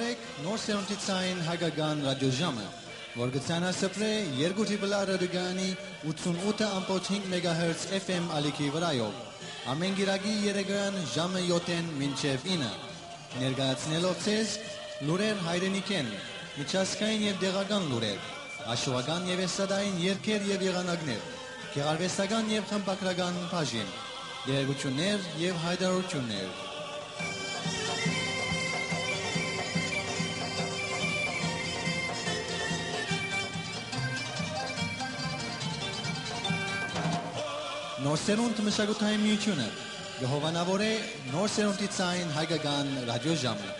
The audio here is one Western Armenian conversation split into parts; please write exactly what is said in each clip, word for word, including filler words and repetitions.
Նոր սերունդի ցային հայկական ռադիոժամը, որ կը ցանասփռէ երկու դիպլա ռադիոկայանի ութսունութ ըմբոց հինգ մեգահերց F M ալիքի վրայով, ամէն կիրակի երեկոյեան ժամը յոթ մինչեւ ինը, ներկայացնելով ձեզ լուրեր հայրենիքէն, միջազգային եւ տեղական լուրեր, հաշուական եւ էստրադային երգեր եւ եղանակներ, գեղարուեստական եւ խմբագրական բաժին, տեղեկութիւններ եւ յայտարարութիւններ։ Նոր սերունդ մշակութային միութիւնը կը հովանաւորէ նոր սերունդի ցային հայկական ռադիոժամը։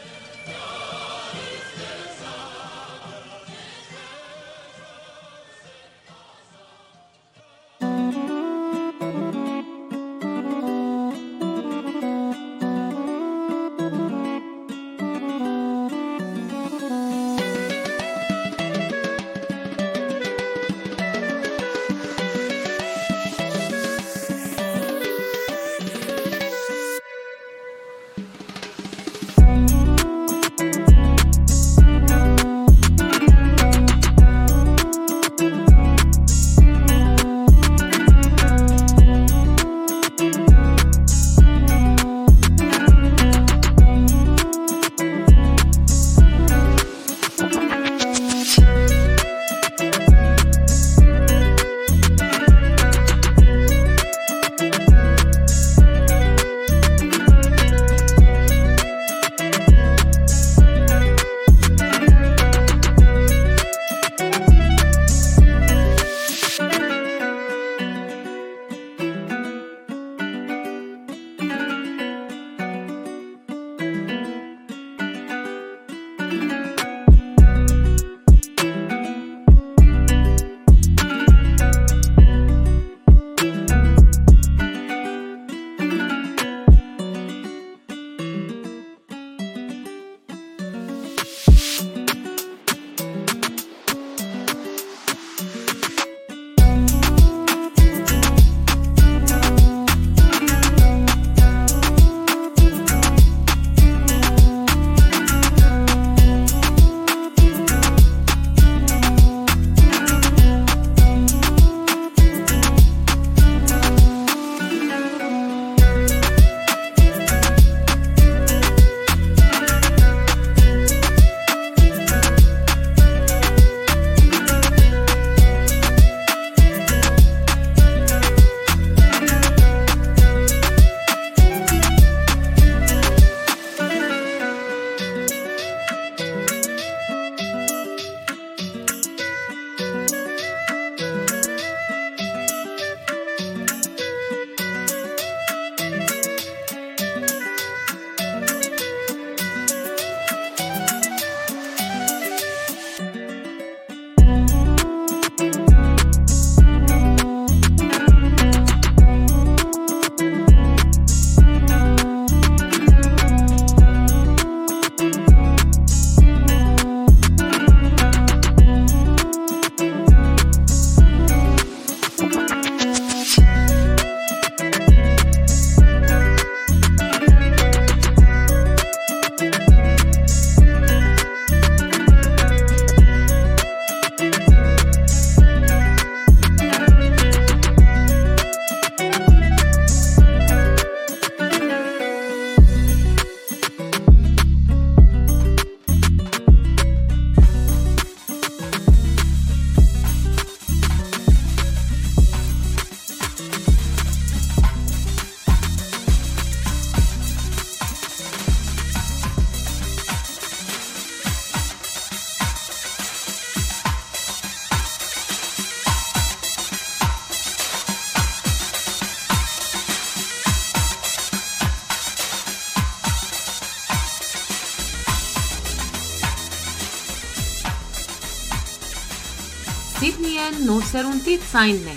Սիդնիէն նոր սերունդի ցայնն է։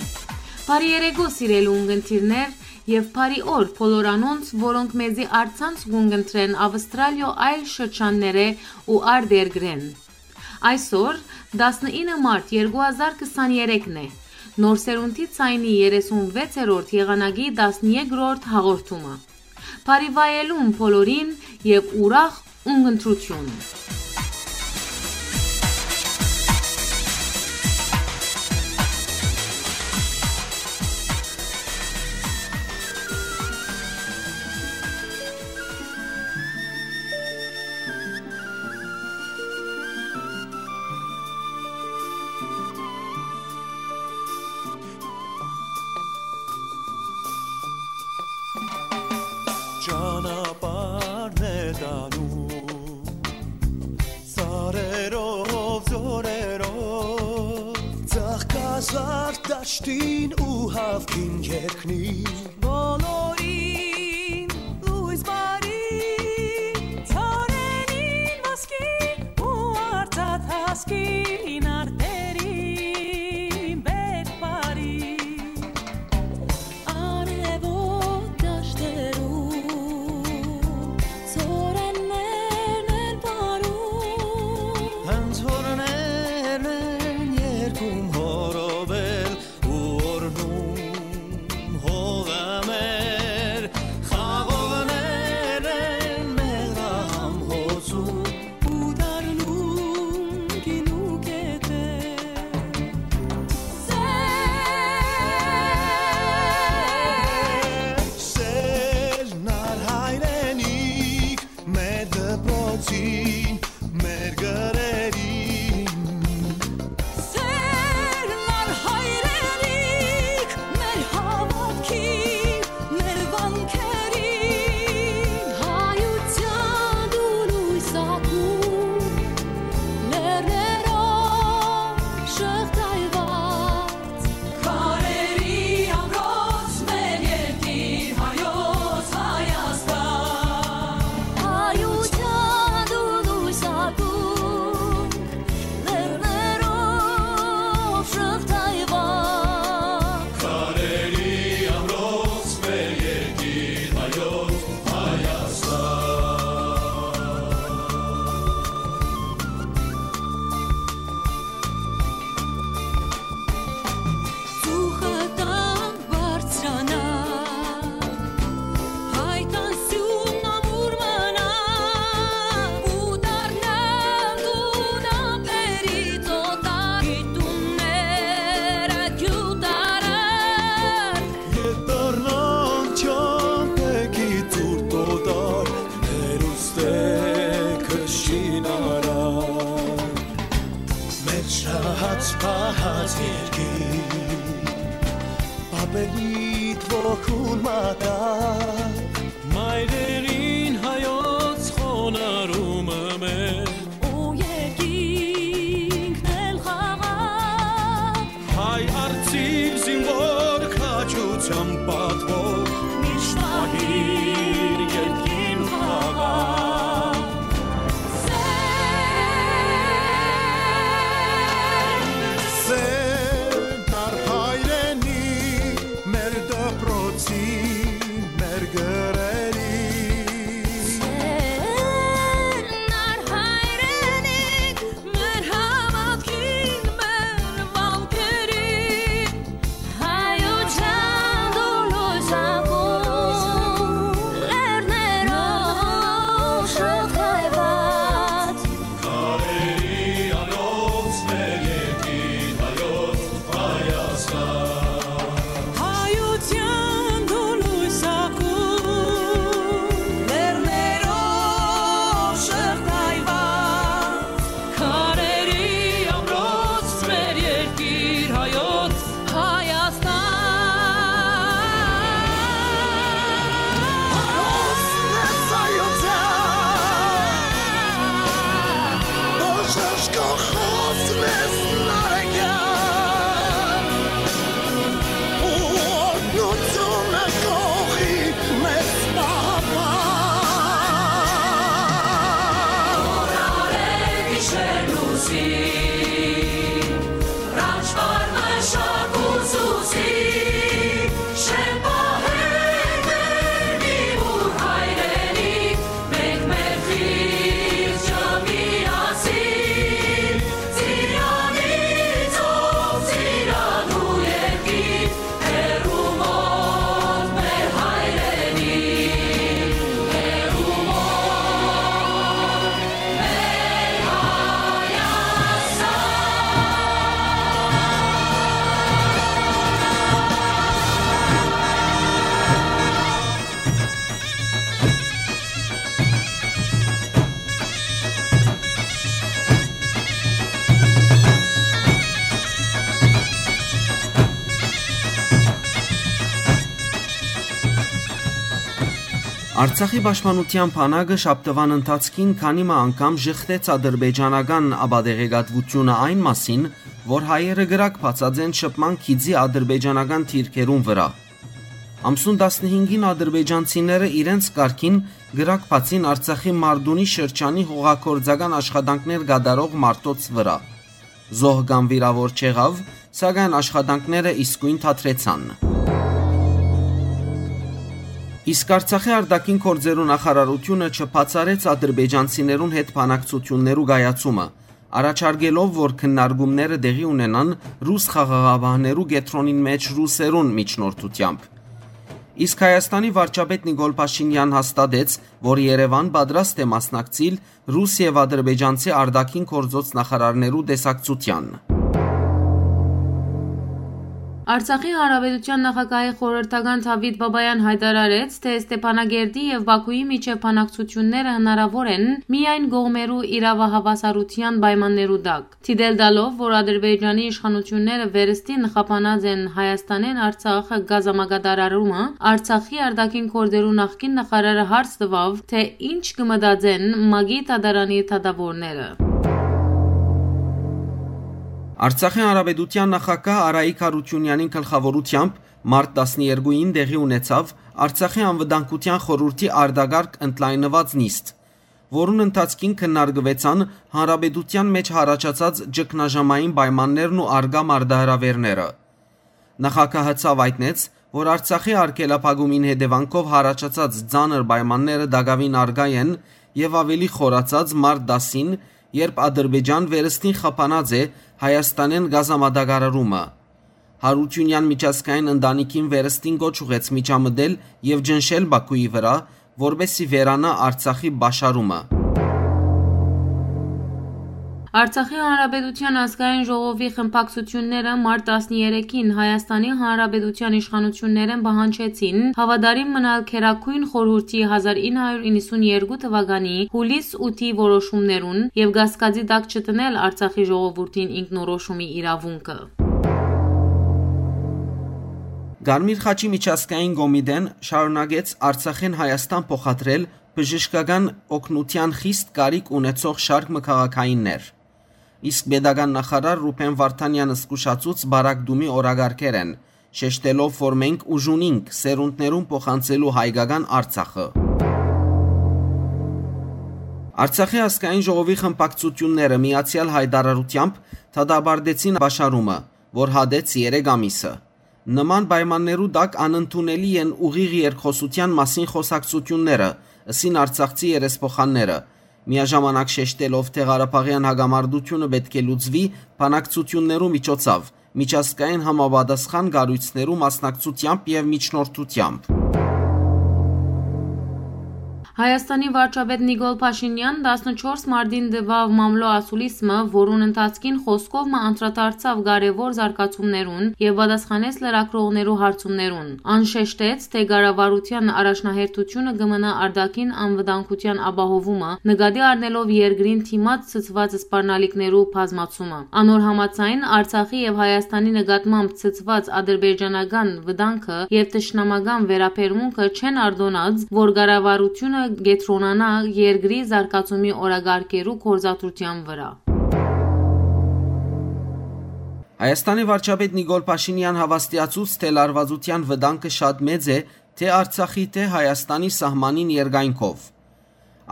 Բարի երեկո, սիրելի ունգընտիրներ, եւ բարի օր բոլոր անոնց, որոնք մեզի առցանց կ'ունգընտրեն Ավստրալիոյ այլ շրջաններէ ու արտերկրէն։ Այսօր, տասնինը մարտ երկու հազար քսան երեքն է, նոր սերունդի ցայնի երեսուն վեցերորդ եղանակի տասներկրորդ հաղորդումը։ Բարի վայելում բոլորին եւ ուրախ ունգընտրություն։ Անում սարերով, ձորերով, ծաղկազարդ դաշտին ու հաւքին երկնին։ Բոլորին լոյս բարի, ծառերին ոսկի ու արծաթ հասկին արտերին բերք բարի։ Արեւոտ դաշտերու ծորեններն են պարում։ Անցորներն են երկում հորովել ու օրհնում հողը մեր, խաղողներն են մեղրահամ հոսում ու դառնում գինու կետեր։ Սեր, սեր, նար հայրենիք, մեր դպրոցին, մեր գրերին։ Սեր, նար հայրենիք, մեր հաւատքին, մեր վանքերին։ Հայութեան դու լոյս ակում, լեռներով շղթայուած, քարերի ամրոց մեր երկիր հայոց Հայաստան։ Հայութեան դու լոյս ակում, լեռներով շղթայուած, քարերի ամրոց մեր երկիր հայոց Հայաստան։ Ծուխը տան բարձրանայ, հայկան սիւնն ամուր մնայ, ու դառնան տուն ափերի ծոտար, գիտունները գիւտարար։ Ետ դառնան չամպեքի ծուր տոտար, մեր ուստեքը շինարար։ Մեր շահած պահած երկիր, պապերիդ ոգուն մատակ։ Մայրերին հայոց խոնարհումը մեր, ու երկինքն էլ խաղաղ։ Հայ արծիվ զինվոր քաջութեան պատվով, միշտ պահիր երկիր խաղաղ։ Սեր, նար հայրենի, մեր դպրոցի, մեր գրերի, Արցախի պաշտպանութեան բանակը շաբթուան ընթացքին քանի մը անգամ ժխտեց ադրբեջանական ապատեղեկատվութիւնը այն մասին, որ հայերը կրակ բացած են շփման գիծի ադրբեջանական դիրքերուն վրայ։ Ամսուն տասնհինգին ադրբեջանցիները իրենց կարգին կրակ բացին Արցախի Մարդունի շրջանի հողագործական աշխատանքներ կատարող մարդոց վրայ։ Զոհ կամ վիրաւոր չեղաւ, սակայն աշխատանքները իսկոյն դադրեցան։ Իսկ Արցախի արտաքին գործերու նախարարութիւնը չբացառեց ադրբեջանցիներուն հետ բանակցութիւններու կայացումը, առաջարկելով, որ քննարկումները տեղի ունենան ռուս խաղաղապահներու կեդրոնին մէջ ռուսերուն միջնորդութեամբ։ Իսկ Հայաստանի վարչապետ Նիկոլ Փաշինեան հաստատեց, որ Երեւան պատրաստ է մասնակցիլ ռուս եւ ադրբեջանցի արտաքին գործոց նախարարներու տեսակցութեան։ Արցախի Հանրապետութեան նախագահի խորհրդական Դաւիթ Բաբաեան յայտարարեց, թէ Ստեփանագերդի եւ Բաքուի միջեւ բանակցութիւնները հնարաւոր են միայն կողմերու իրաւահաւասարութեան պայմաններու տակ, դիտել տալով, որ Ադրբեջանի իշխանութիւնները վերստին խափանած են Հայաստանէն Արցախ կազմակատարարումը։ Արցախի արտաքին գործերու նախկին նախարարը հարց տուաւ, թէ ինչ կը մտածեն ՄԱԿ-ի դատարանի դատաւորները։ Արցախի Հանրապետութեան նախագահ Արայիկ Յարութիւնեանին գլխաւորութեամբ մարտ տասներկուին տեղի ունեցաւ Արցախի անվտանգութեան խորհուրդի արտակարգ ընդլայնուած նիստ, որուն ընթացքին քննարկուեցան հանրապետութեան մէջ յառաջացած ճգնաժամային պայմաններն ու առկայ մարտահրաւէրները։ Նախագահը ցաւ յայտնեց, որ Արցախի արգելափակումին հետեւանքով յառաջացած ծանր պայմանները տակաւին առկայ են եւ աւելի խորացած մարտ տասին, երբ Ադրբեջան վերստին խափանած է Հայաստանէն կազմատակարարումը։ Յարութիւնեան միջազգային ընտանիքին վերստին կոչ ուղղեց միջամտել եւ ճնշել Բաքուի վրայ, որպէս զի վերանայ Արցախի պաշարումը։ Արցախի Հանրապետութեան ազգային ժողովի խմբակցութիւնները մարտ տասներեքին Հայաստանի Հանրապետութեան իշխանութիւններէն պահանջեցին հաւատարիմ մնալ Գերագոյն խորհուրդի հազար ինը հարիւր իննսունեերկու թուականի յուլիս ութի որոշումներուն եւ կասկածի տակ չդնել Արցախի ժողովուրդին ինքնորոշումի իրաւունքը։ Կարմիր խաչի միջազգային կոմիտեն շարունակեց Արցախէն Հայաստան փոխադրել բժշկական օգնութեան խիստ կարիք ունեցող շարք մը քաղաքայիններ։ Իսկ պետական նախարար Ռուբեն Վարդանեան զգուշացուց պարագտումի օրակարգերէն, շեշտելով, որ մենք ուժ ունինք սերունդներուն փոխանցելու հայկական Արցախը։ Արցախի ազգային ժողովի խմբակցութիւնները միացեալ յայտարարութեամբ դատապարտեցին պաշարումը, որ հատեց երեք ամիսը։ Նման պայմաններու տակ անընդունելի են ուղիղ երկխօսութեան մասին խօսակցութիւնները, ըսին արցախցի երեսփոխանները, միաժամանակ շեշտելով, թէ Ղարաբաղեան հակամարտութիւնը պէտք է լուծուի բանակցութիւններու միջոցով, միջազգային համապատասխան կառոյցներու մասնակցութեամբ եւ միջնորդութեամբ։ Հայաստանի վարչապետ Նիկոլ Փաշինեան տասնչորս մարտին տուաւ մամլոյ ասուլիս մը, որուն ընթացքին խօսքով մը անդրադարձաւ կարեւոր զարգացումներուն եւ պատասխանեց լրագրողներու հարցումներուն։ Ան շեշտեց, թէ կառավարութեան առաջնահերթութիւնը կը մնայ արտաքին անվտանգութեան ապահովումը, նկատի առնելով երկրին դիմաց ցցուած սպառնալիքներու բազմացումը։ Անոր համաձայն, Արցախի եւ Հայաստանի նկատմամբ ցցուած ադրբեջանական վտանգը եւ թշնամական վերաբերմունքը չեն արտոնած, որ կառավարութիւնը կեդրոնանայ երկրի զարգացումի օրակարգերու գործադրութեան վրայ։ Հայաստանի վարչապետ Նիկոլ Փաշինեան հաւաստիացուց, թէ լարուածութեան վտանգը շատ մեծ է թէ Արցախի, թէ Հայաստանի սահմանին երկայնքով։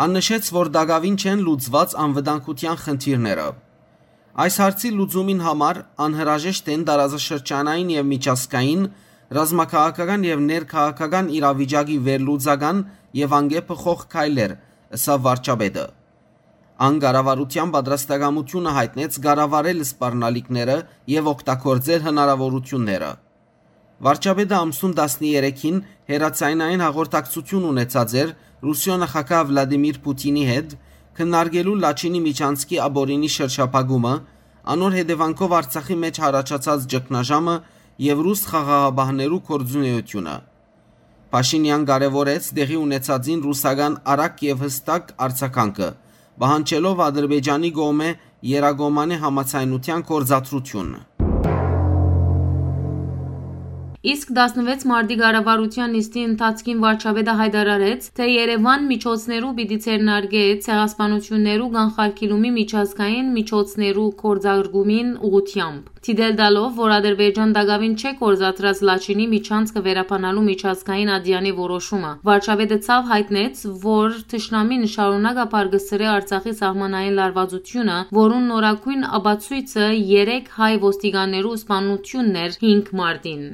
Ան նշեց, որ տակաւին չեն լուծուած անվտանգութեան խնդիրները։ Այս հարցի լուծումին համար անհրաժեշտ են տարածաշրջանային եւ միջազգային, ռազմաքաղաքական եւ ներքաղաքական իրավիճակի վերլուծական եւ անկեփոխող քայլեր, ըսաւ վարչապետը։ Ան կառավարութեան պատրաստակամութիւնը յայտնեց կառավարել սպառնալիքները եւ օգտագործել հնարաւորութիւնները։ Վարչապետը ամսուն տասներեքին հեռաձայնային հաղորդակցութիւն ունեցած էր Ռուսիոյ նախագահ Վլադիմիր Պութինի հետ, քննարկելու Լաչինի միջանցքի ապօրինի շրջափակումը, անոր հետեւանքով Արցախի մէջ յառաջացած ճգնաժամը եւ ռուս խաղաղապահներու գործունեութիւնը։ Փաշինեան կարեւորեց տեղի ունեցածին ռուսական արագ եւ յստակ արձագանքը, պահանջելով Ադրբեջանի կողմէ երակոմանէ համաձայնութեան գործադրութիւն։ Իսկ տասնվեց մարտի կառավարութեան նիստի ընթացքին վարչապետը յայտարարեց, թէ Երեւան միջոցներու պիտի ձեռնարկէ ցեղասպանութիւններու կանխարգիլումի միջազգային միջոցներու գործարկումին ուղղութեամբ, դիտել տալով, որ Ադրբեջան տակաւին չէ գործադրած Լաչինի միջանցքը վերաբանալու միջազգային ատեանի որոշումը։ Վարչապետը ցաւ յայտնեց, որ թշնամին շարունակաբար կը սրէ Արցախի սահմանային լարվածությունը, որուն նորագոյն ապացոյցը երեք հայ ոստիկաններու սպանութիւնն էր հինգ մարտին։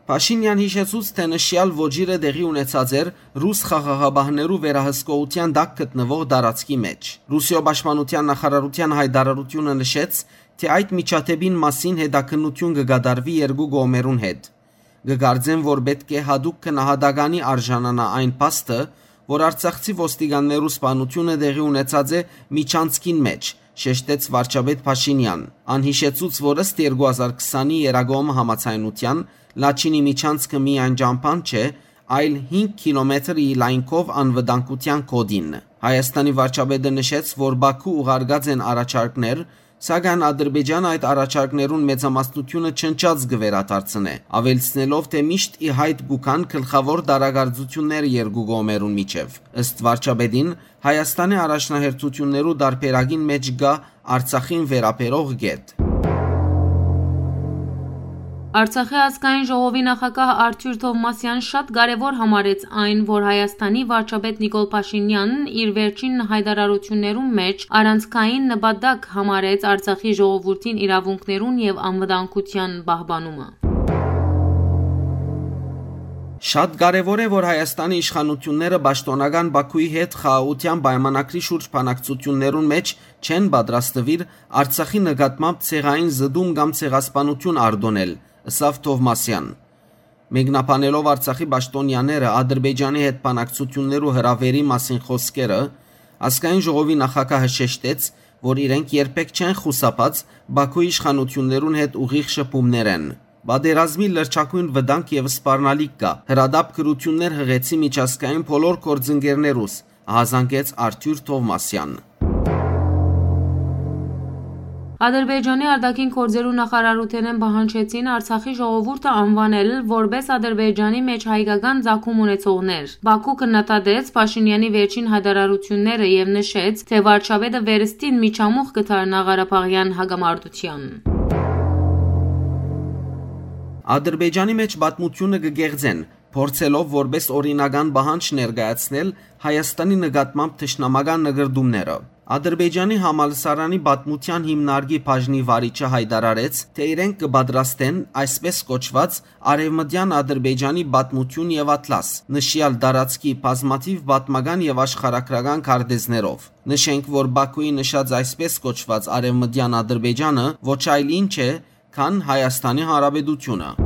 Փաշինեան յիշեցուց, թէ նշեալ ոճիրը տեղի ունեցած էր ռուս խաղաղապահներու վերահսկողութեան տակ գտնուող տարածքի մէջ։ Ռուսիոյ պաշտպանութեան նախարարութեան յայտարարութիւնը նշեց, թէ այդ միջադէպին մասին հետաքննութիւն կը կատարուի երկու կողմերուն հետ։ Կը կարծեմ, որ պէտք է յատուկ գնահատականի արժանանայ այն փաստը, որ արցախցի ոստիկաններու սպանութիւնը տեղի ունեցած է միջանցքին մէջ, շեշտեց վարչապետ Փաշինեան։ Ան յիշեցուց, որ ըստ երկու հազար քսանի Երագոմ համաձայնութեան, Լաչինի միջանցքը միայն ճամբան չէ, այլ հինգ կիլոմետրի լայնքով անվտանգութեան կոդին։ Հայաստանի վարչապետը նշեց, որ Բաքու ուղարկած են առաջարկներ, սակայն Ադրբեջանը այդ առաջարկներուն մեծամասնութիւնը չնչած կը վերադարձնէ, աւելցնելով, թէ միշտ ի յայտ կու գան գլխաւոր տարակարծութիւնները երկու կողմերուն միջեւ։ Ըստ վարչապետին, Հայաստանի առաջնահերթութիւններու տարբերակին մէջ կայ Արցախին վերաբերող կետ։ Արցախի ազգային ժողովի նախագահ Արթուր Թովմասեան շատ կարեւոր համարեց այն, որ Հայաստանի վարչապետ Նիկոլ Փաշինեան իր վերջին յայտարարութիւններուն մէջ առանցքային նպատակ համարեց Արցախի ժողովուրդին իրաւունքներուն եւ անվտանգութեան պահպանումը։ Շատ կարեւոր է, որ Հայաստանի իշխանութիւնները պաշտօնական Բաքուի հետ խաղաղութեան պայմանագրի շուրջ բանակցութիւններուն մէջ չեն պատրաստուիր Արցախի նկատմամբ ցեղային զտում կամ ցեղասպանութիւն արտոնել, ըսաւ Թովմասեան։ Մեկնաբանելով Արցախի պաշտօնեաները Ադրբեջանի հետ բանակցութիւններու հրաւերի մասին խօսքերը, ազգային ժողովի նախագահը շեշտեց, որ իրենք երբեք չեն խուսափած Բաքուի իշխանութիւններուն հետ ուղիղ շփումներէն։ Պատերազմի լրջագոյն վտանգ եւ սպառնալիք կայ, հրատապ գրութիւններ յղեցի միջազգային բոլոր գործընկերներուս, ահազանգեց Արթուր Թովմասեան։ Ադրբեջանի արտաքին գործերու նախարարութենէն պահանջեցին Արցախի ժողովուրդը անուանել որպէս Ադրբեջանի մէջ հայկական ծագում ունեցողներ։ Բաքու քննադատեց Փաշինեանի վերջին յայտարարութիւնները եւ նշեց, թէ վարչապետը վերստին միջամուխ կը դառնայ ղարաբաղեան հակամարտութեան։ Ադրբեջանի մէջ պատմութիւնը կը կեղծեն, փորձելով որպէս օրինական պահանջ ներկայացնել Հայաստանի նկատմամբ թշնամական նկրտումները։ Ադրբեջանի համալսարանի պատմութեան հիմնարկի բաժնի վարիչը յայտարարեց, թէ իրենք կը պատրաստեն այսպես կոչուած Արեւմտեան Ադրբեջանի պատմութիւն եւ ատլաս, նշեալ տարածքի բազմաթիւ պատմական եւ աշխարհագրական քարտեզներով։ Նշենք, որ Բաքուի նշած այսպես կոչուած Արեւմտեան Ադրբեջանը ոչ այլ ինչ է, քան Հայաստանի Հանրապետությունը։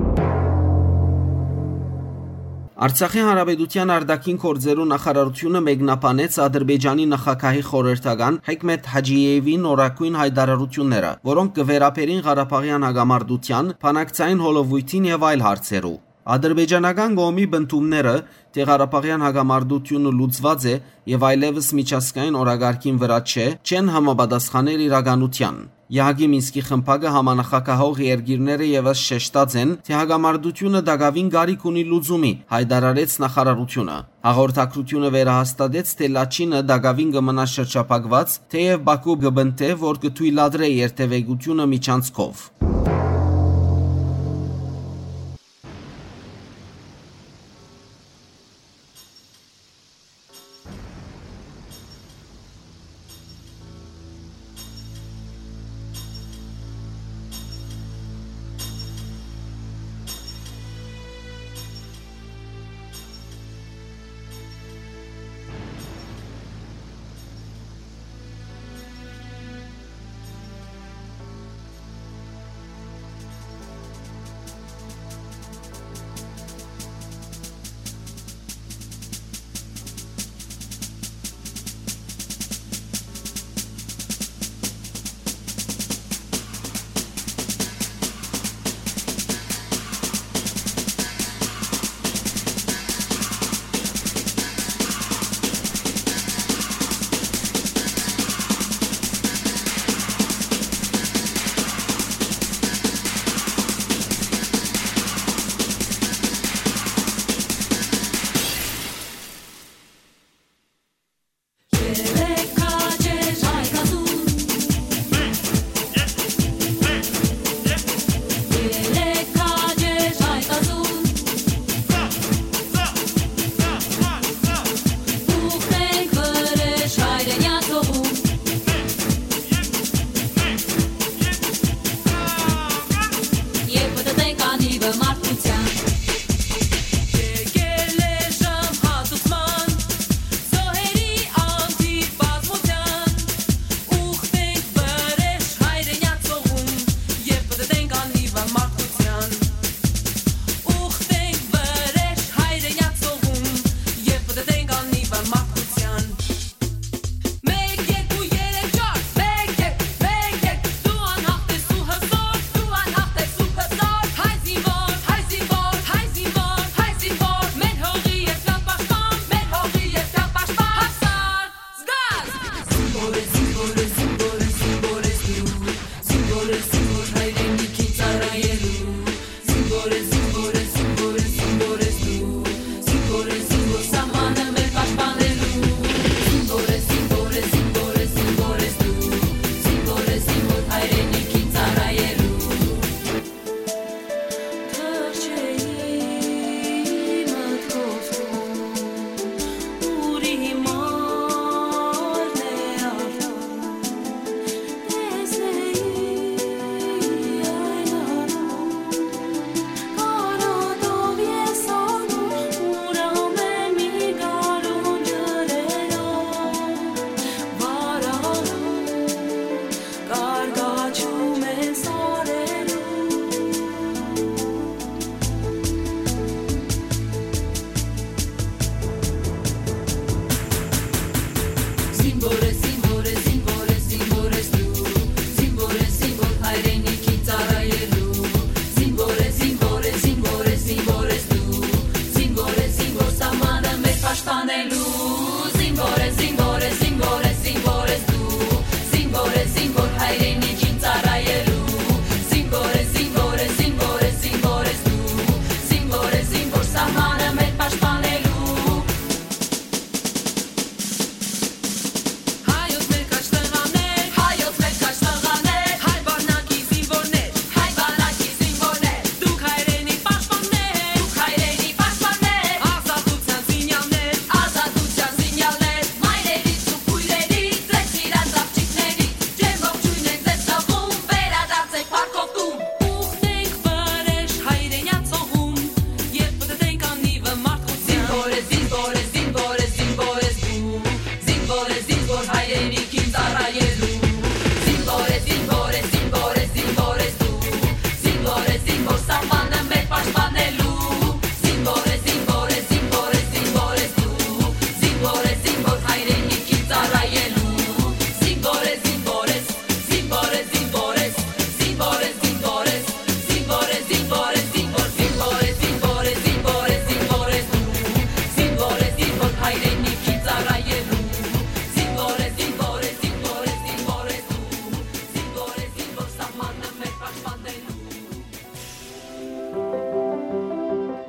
Արցախի Հանրապետութեան արտաքին գործերու նախարարութիւնը մեկնաբանեց Ադրբեջանի նախագահի խորհրդական Հեքմեթ Հաջիեվի նորագոյն յայտարարութիւնները, որոնք կը վերաբերին ղարաբաղեան հակամարտութեան, բանակցային հոլովոյթին եւ այլ հարցերու։ Ադրբեջանական կողմի պնդումները, թէ ղարաբաղեան հակամարտութիւնը լուծուած է եւ այլեւս միջազգային օրակարգին վրայ չէ, չեն համապատասխաներ իրականութեան։ Եհակի Մինսկի խմբակը համանախագահող երկիրները եւս շեշտած են, թէ հակամարտութիւնը տակաւին կարիք ունի լուծումի, յայտարարեց նախարարութիւնը։ Հաղորդակցութիւնը վերահաստատեց, թէ Լաչինը տակաւին կը մնայ շրջափակուած, թէեւ Բաքու կը պնդէ, որ կը թոյլատրէ երթեւեկութիւնը միջանցքով։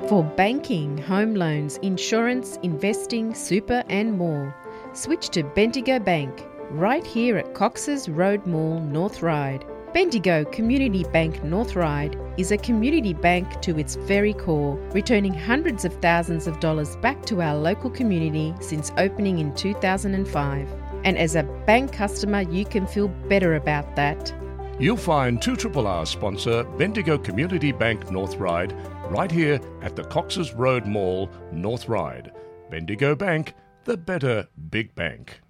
For banking, home loans, insurance, investing, super, and more, switch to Bendigo Bank, right here at Cox's Road Mall, North Ryde. Bendigo Community Bank North Ryde is a community bank to its very core, returning hundreds of thousands of dollars back to our local community since opening in two thousand and five. And as a bank customer, you can feel better about that. You'll find two triple R sponsor Bendigo Community Bank North Ryde right here at the Cox's Road Mall, North Ryde. Bendigo Bank, the better big bank.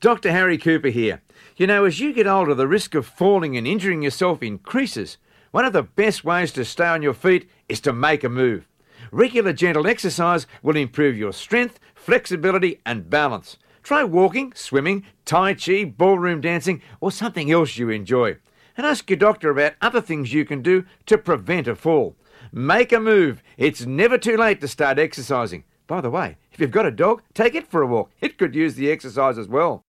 Doctor Harry Cooper here. You know, as you get older, the risk of falling and injuring yourself increases. One of the best ways to stay on your feet is to make a move. Regular gentle exercise will improve your strength, flexibility, and balance. Try walking, swimming, tai chi, ballroom dancing, or something else you enjoy. And ask your doctor about other things you can do to prevent a fall. Make a move. It's never too late to start exercising. By the way, if you've got a dog, take it for a walk. It could use the exercise as well.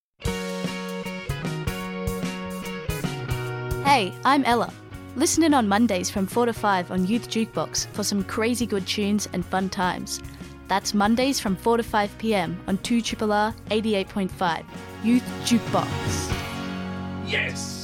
Hey, I'm Ella. Listen in on Mondays from four to five on Youth Jukebox for some crazy good tunes and fun times. That's Mondays from four to five p.m. on two triple R eighty-eight point five. Youth Jukebox. Yes!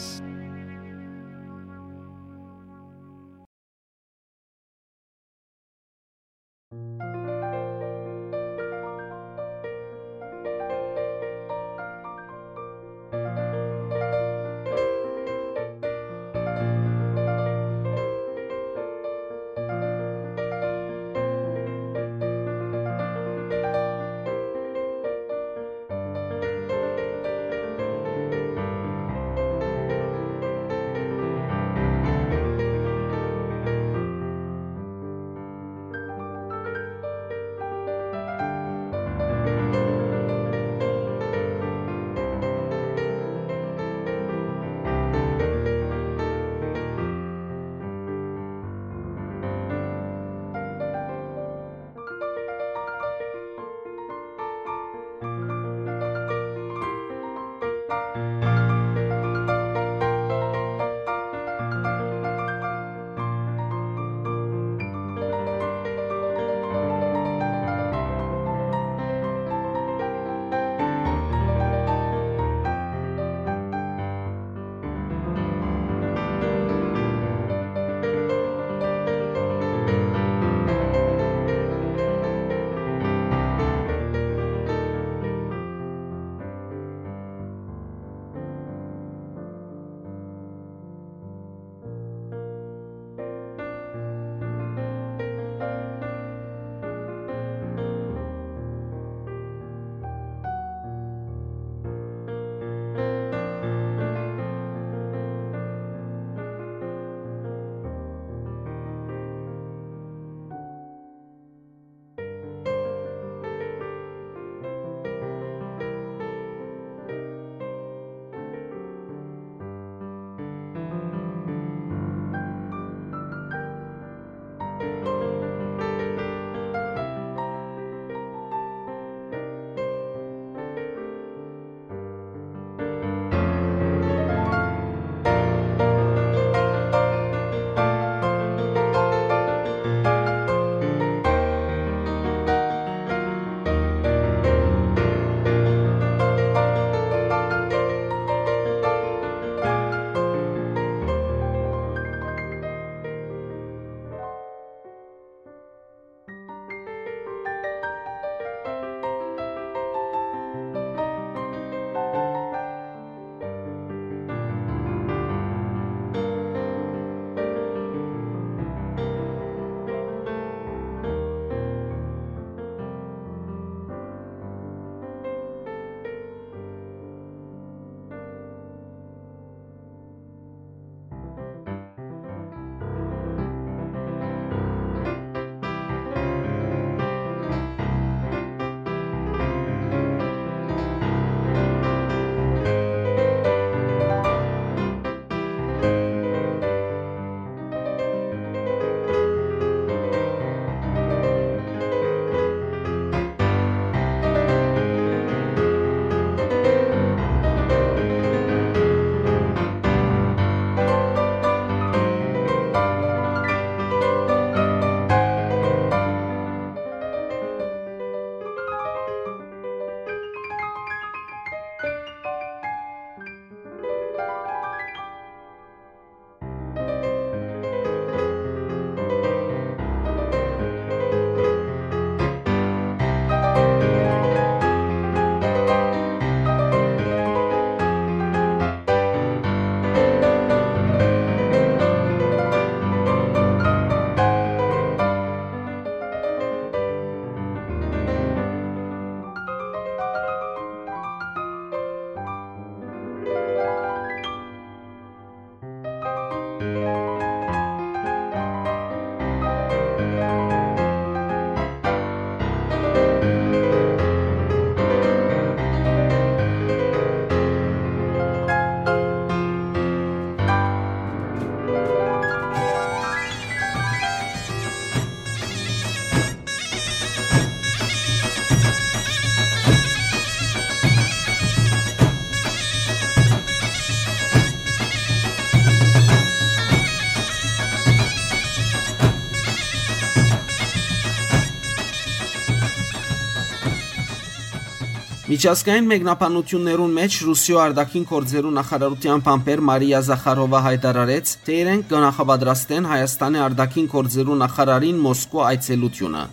Միջազգային մեկնաբանութիւններուն մէջ Ռուսիոյ արտաքին գործերու նախարարութեան բանբեր Մարիա Զախարովա յայտարարեց, թէ իրենք կը նախապատրաստեն Հայաստանի արտաքին գործերու նախարարին Մոսկվա այցելութիւնը։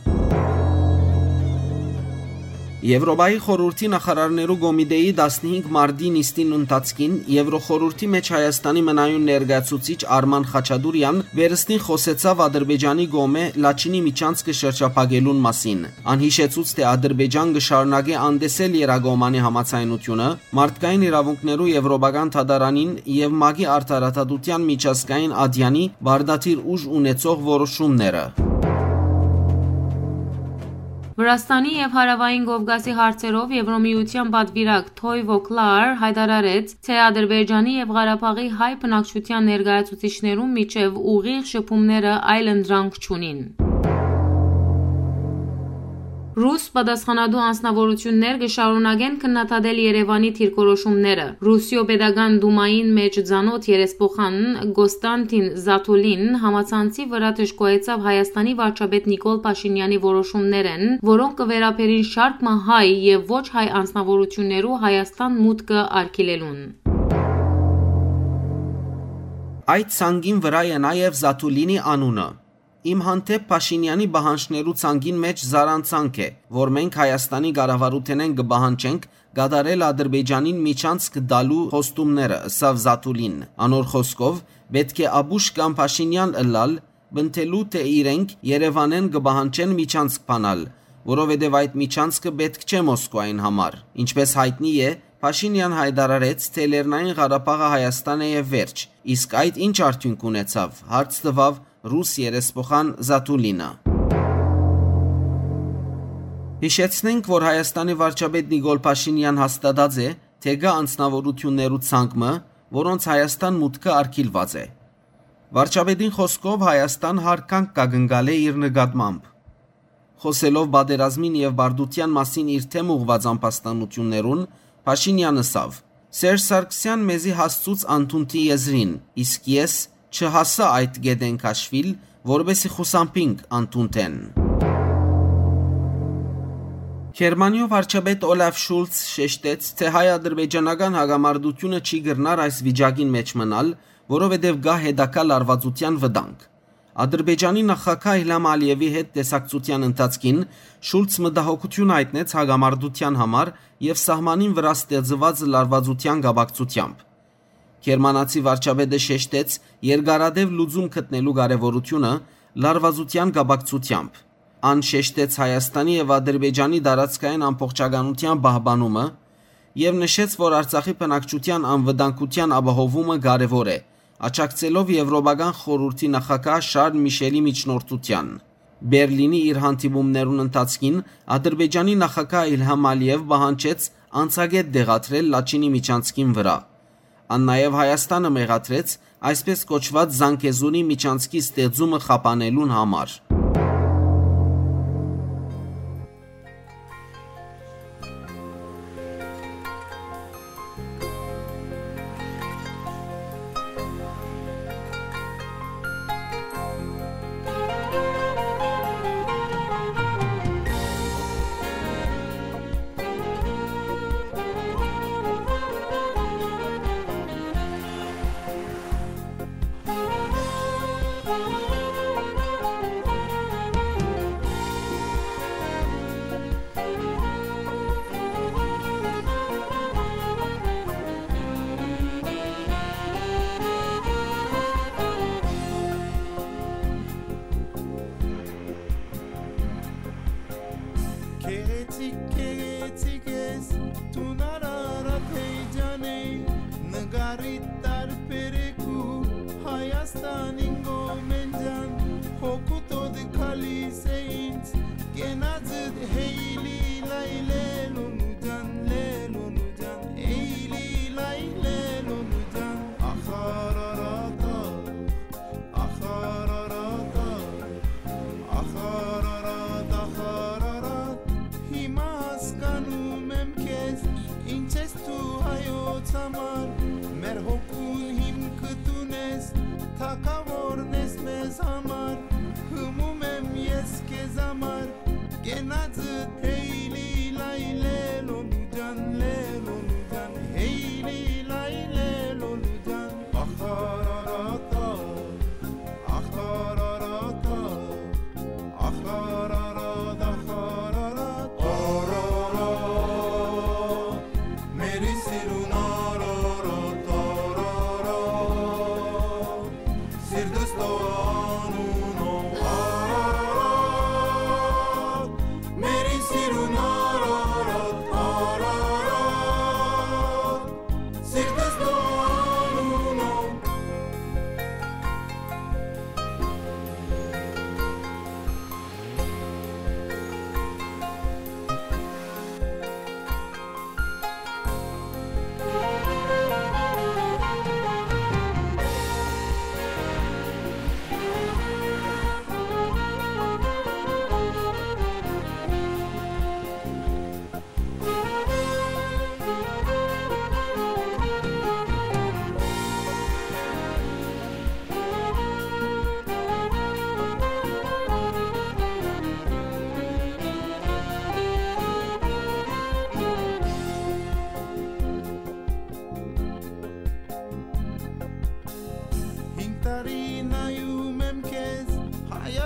Եվրոպայի խորհրդի նախարարներու կոմիտեի տասնհինգ մարտի նիստին ընթացքին Եվրոխորհրդի մէջ Հայաստանի մնայուն ներկայացուցիչ Արման Խաչատուրեան վերստին խօսեցաւ Ադրբեջանի կողմէ Լաչինի միջանցքը շրջափակելուն մասին։ Ան յիշեցուց, թէ Ադրբեջան կը շարունակէ անտեսել Երակոմանի համաձայնութիւնը, մարդկային իրաւունքներու Եվրոպական դատարանին եւ մակի արդարադատութեան միջազգային ատեանի պարտադիր ուժ ունեցող որոշումները։ Վրաստանի եւ Հարաւային Կովկասի հարցերով Եվրոմիութեան պատուիրակ Թոյ Վոքլար յայտարարեց, թէ Ադրբեջանի եւ Ղարաբաղի հայ բնակչութեան ներկայացուցիչներուն միջեւ ուղիղ շփումները այլընտրանք չունին։ Ռուս պատասխանատու անձնաւորութիւններ կը շարունակեն քննադատել Երեւանի դիրքորոշումները։ Ռուսիոյ Պետական Դումային մէջ ծանօթ երեսփոխան Կոստանտին Զաթուլին համացանցի վրայ դժգոհեցաւ Հայաստանի վարչապետ Նիկոլ Փաշինեանի որոշումներէն, որոնք կը վերաբերին շարք մը հայ եւ ոչ հայ անձնաւորութիւններու Հայաստան մուտքը արգիլելուն։ Այդ ցանկին վրայ է նաեւ Զաթուլինի անունը։ Իմ հանդէպ Փաշինեանի պահանջներու ցանկին մէջ զառանցանք է, որ մենք Հայաստանի կառավարութենէն կը պահանջենք կատարել Ադրբեջանին միջանցք տալու խոստումները, ըսաւ Զաթուլին։ Անոր խօսքով, պէտք է ապուշ կամ Փաշինեան ըլլալ, պնդելու, թէ իրենք Երեւանէն կը պահանջեն միջանցք բանալ, որովհետեւ այդ միջանցքը պէտք չէ Մոսկվային համար։ Ինչպէս յայտնի է, Փաշինեան յայտարարեց, թէ Լեռնային Ղարաբաղը Հայաստան է եւ վերջ։ Իսկ այդ ի՞նչ արդիւնք ունեցաւ, հարց տուաւ ռուս երեսփոխան Զաթուլինը։ Յիշեցնենք, որ Հայաստանի վարչապետ Նիկոլ Փաշինեան հաստատած է, թէ կայ անձնաւորութիւններու ցանկ մը, որոնց Հայաստան մուտքը արգիլուած է։ Վարչապետին խօսքով, Հայաստան հարգանք կը կնկալէ իր նկատմամբ։ Խօսելով պատերազմին եւ բարդութեան մասին իր դէմ ուղղուած ամբաստանութիւններուն, Փաշինեան ըսաւ. «Սերժ Սարգսեան մեզի հասցուց անդունդի եզրին, իսկ ես չհասա այդ կետէն քաշուիլ, որպէսզի խուսափինք անդունդէն»։ Գերմանիոյ վարչապետ Օլաֆ Շուլց շեշտեց, թէ հայ-ադրբեջանական հակամարտութիւնը չի կրնար այս վիճակին մէջ մնալ, որովհետեւ կայ հետագայ լարուածութեան վտանգ։ Ադրբեջանի նախագահ Իլհամ Ալիեւի հետ տեսակցութեան ընթացքին Շուլց մտահոգութիւն յայտնեց հակամարտութեան համար եւ սահմանին վրայ ստեղծուած լարուածութեան կապակցութեամբ։ Գերմանացի վարչապետը շեշտեց երկարատեւ լուծում գտնելու կարեւորութիւնը լարուածութեան կապակցութեամբ։ Ան շեշտեց Հայաստանի եւ Ադրբեջանի տարածքային ամբողջականութեան պահպանումը եւ նշեց, որ Արցախի բնակչութեան անվտանգութեան ապահովումը կարեւոր է, աջակցելով Եվրոպական խորհրդի նախագահ Շարլ Միշելի միջնորդութեան։ Բերլինի իր հանդիպումներուն ընթացքին Ադրբեջանի նախագահ Իլհամ Ալիեւ պահանջեց անցակետ տեղադրել Լաչինի միջանցքին վրայ։ Ան նաեւ Հայաստանը մեղադրեց այսպես կոչուած Զանգեզուրի միջանցքի ստեղծումը խափանելուն համար։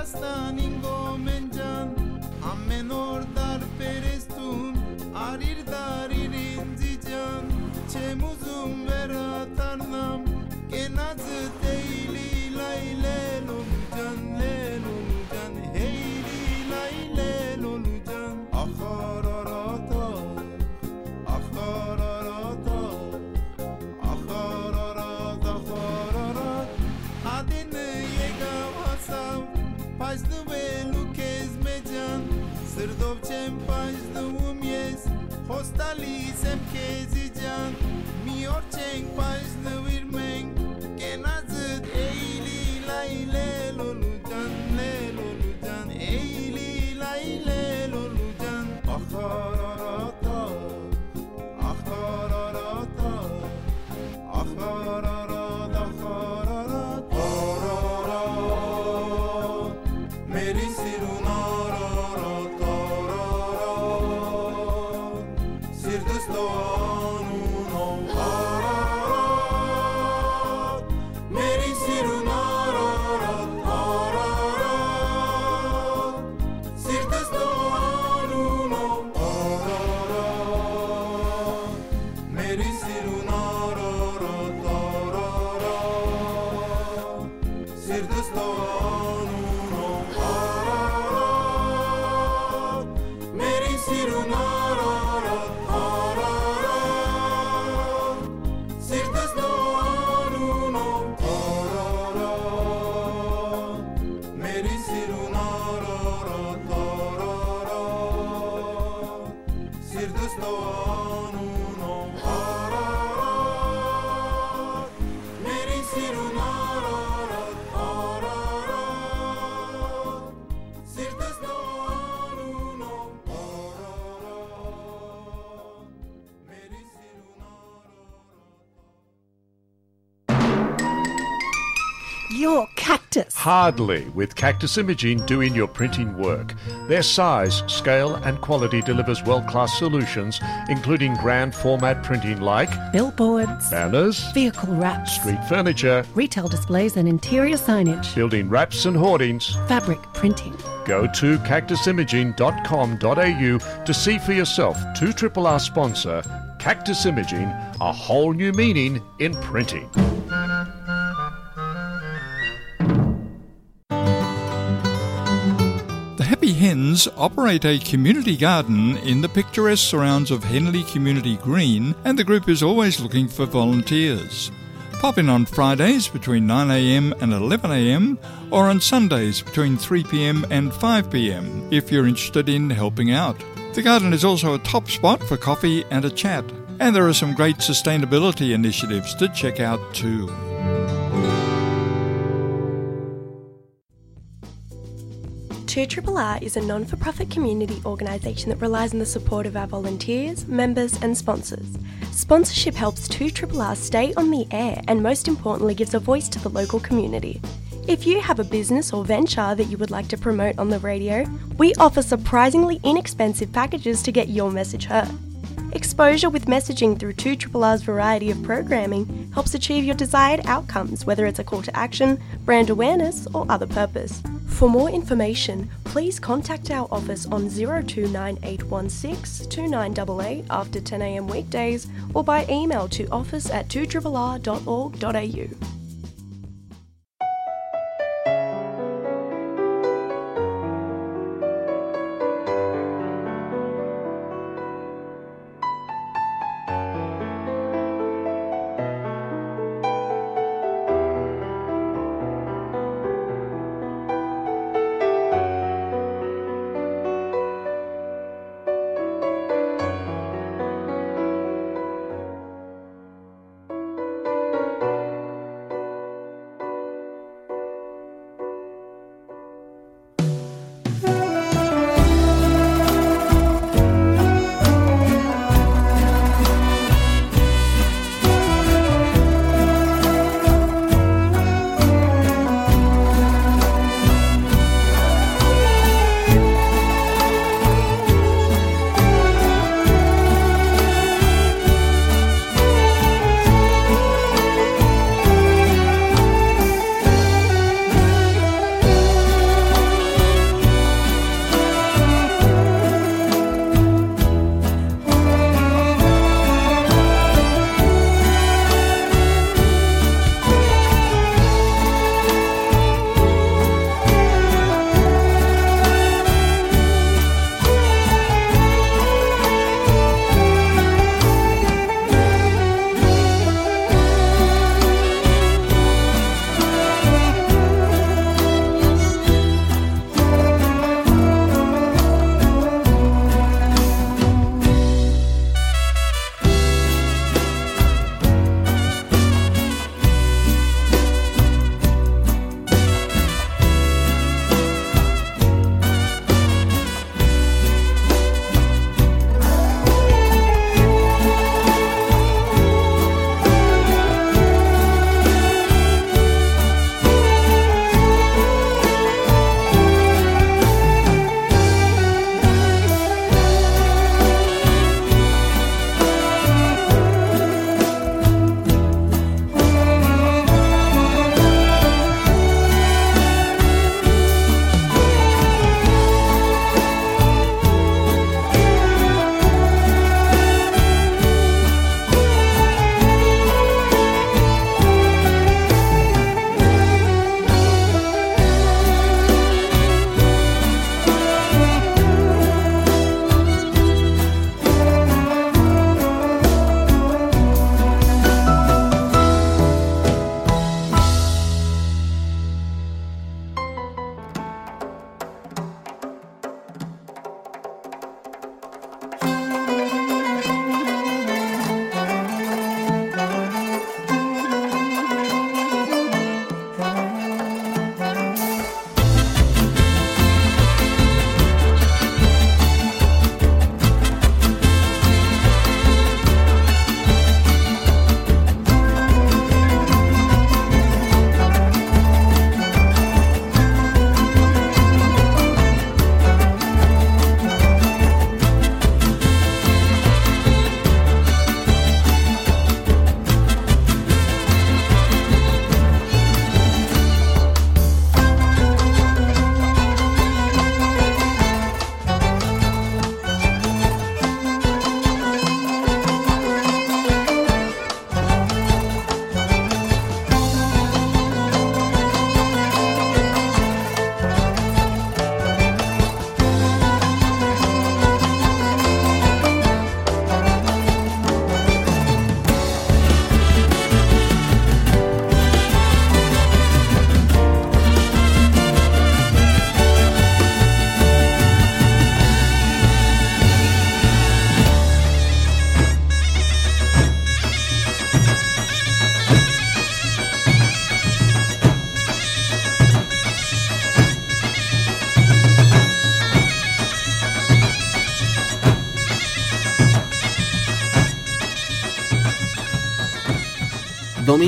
Ստանին գոմեն ջան, ամեն օր տարբեր ես դուն, արիր դարիր ինձի ջան, չեմ ուզում վերադառնամ, կենացդ էյլի լայ լե լոլու ջան, լե լոլու ջան, հեյլի լայ լե լոլու ջան, ախարարատա, ախարարատա, ախարարատ, ախարարատ, ատենը եկաւ հասաւ, պայծնուելու քեզ մէջան, սրտով չեմ պայծնվում ես, խոստալիս եմ քեզի ջան, մի օր չենք պայծնուիր մենք, կենացդ էյլի լայ լե լոլու ջան, լե լոլու ջան, էյլի լայ լե լոլու ջան, ախարարատա, ախարարատա, ախարարատ, ախարարատ, արարատ, մերի սիրուն արարատ, արարատ, սիրտս տող անունով արարատ, մերի սիրուն արարատ, արարատ, սիրտս տող անունով արարատ, մերի սիրուն արարատ, արարատ, սիրտս տող անունով արարատ, մերի սիրուն արարատ, արարատ, սիրտս տող անունով արարատ, մերի սիրուն արարատ, արարատ, սիրտս տող անունով արարատ, մերի սիրուն արարատ, արարատ, սիրտս տող անունով արարատ, մերի սիրուն արարատ։ Your Cactus. Hardly, with Cactus Imaging doing your printing work. Their size, scale, and quality delivers world-class solutions, including grand format printing like billboards, banners, vehicle wraps, street furniture, retail displays and interior signage, building wraps and hoardings, fabric printing. Go to cactus imaging dot com dot a u to see for yourself. Two triple R sponsor, Cactus Imaging, a whole new meaning in printing. The Happy Hens operate a community garden in the picturesque surrounds of Henley Community Green, and the group is always looking for volunteers. Pop in on Fridays between nine a m and eleven a m, or on Sundays between three p m and five p m if you're interested in helping out. The garden is also a top spot for coffee and a chat, and there are some great sustainability initiatives to check out too. Two Triple R is a non for profit community organisation that relies on the support of our volunteers, members, and sponsors. Sponsorship helps Two Triple R stay on the air and, most importantly, gives a voice to the local community. If you have a business or venture that you would like to promote on the radio, we offer surprisingly inexpensive packages to get your message heard. Exposure with messaging through Two Triple R's variety of programming helps achieve your desired outcomes, whether it's a call to action, brand awareness, or other purpose. For more information, please contact our office on zero two nine eight one six two nine double eight after ten a m weekdays or by email to office at two triple r dot org dot a u.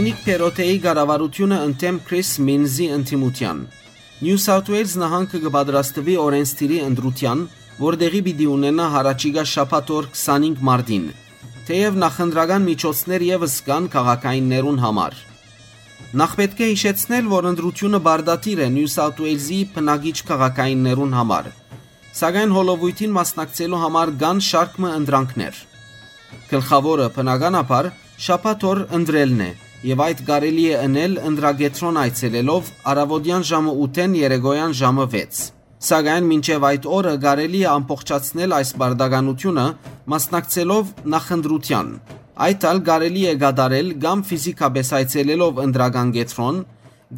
Դոմինիկ Փերոթեի կառավարութիւնը ընդդէմ Քրիս Մինզի ընդդիմութեան։ Նիու Սաութ Ուէյլզ նահանգը կը պատրաստուի օրէնսդիրի ընտրութեան, որ տեղի պիտի ունենայ յառաջիկայ շաբաթ օր քսանհինգ մարտին, թէեւ նախընտրական միջոցներ եւս կան քաղաքայիններուն համար։ Նախ պէտք է յիշեցնել, որ ընտրութիւնը պարտադիր է Նիու Սաութ Ուէյլզի բնակիչ քաղաքայիններուն համար, սակայն հոլովոյթին մասնակցելու համար կան շարք մը ընտրանքներ։ Գլխաւորը, բնականաբար, շաբաթ օր ընտրելն է, եւ այդ կարելի է ընել ընտրակեդրոն այցելելով առաւօտեան ժամը ութ-էն երեկոյան ժամը վեց։ Սակայն մինչեւ այդ օրը կարելի է ամբողջացնել այս պարտականութիւնը՝ մասնակցելով նախընտրութեան։ Այդ ալ կարելի է կատարել կամ ֆիզիկապէս այցելելով ընտրական կեդրոն,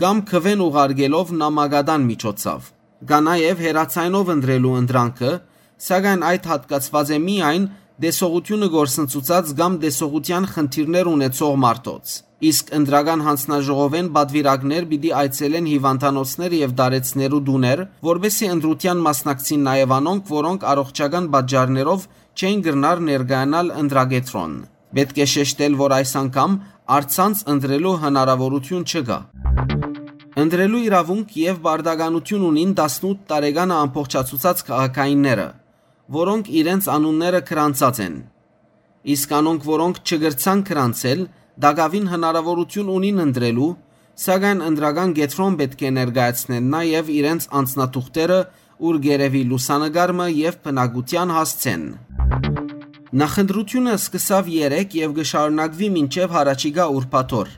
կամ քուէն ուղարկելով նամակատան միջոցով։ Կա նաեւ հեռաձայնով ընտրելու ընտրանքը, սակայն այդ յատկացուած է միայն տեսողութիւնը կորսնցուցած կամ տեսողութեան խնդիրներ ունեցող մարդոց։ Իսկ ընտրական յանձնաժողովէն պատուիրակներ պիտի այցելեն հիւանդանոցներ եւ տարեցներու տուներ, որպէսզի ընտրութեան մասնակցին նաեւ անոնք, որոնք առողջական պատճառներով չեն կրնար ներկայանալ ընտրակեդրոն։ Պէտք է շեշտել, որ այս անգամ առցանց ընտրելու հնարաւորութիւն չկայ։ Ընտրելու իրաւունք եւ պարտականութիւն ունին տասնութ տարեկանը ամբողջացուցած քաղաքայինները, որոնք իրենց անունները գրանցած են։ Իսկ անոնք, որոնք չկրցան գրանցել, տակաւին հնարաւորութիւն ունին ընտրելու, սակայն ընտրական կեդրոն պէտք է ներկայացնեն նաեւ իրենց անձնաթուղթերը, ուր կ'երեւի լուսանկար մը եւ բնակութեան հասցեն։ Նախընտրութիւնը սկսաւ երեկ եւ կը շարունակուի մինչեւ յառաջիկայ ուրբաթ օր,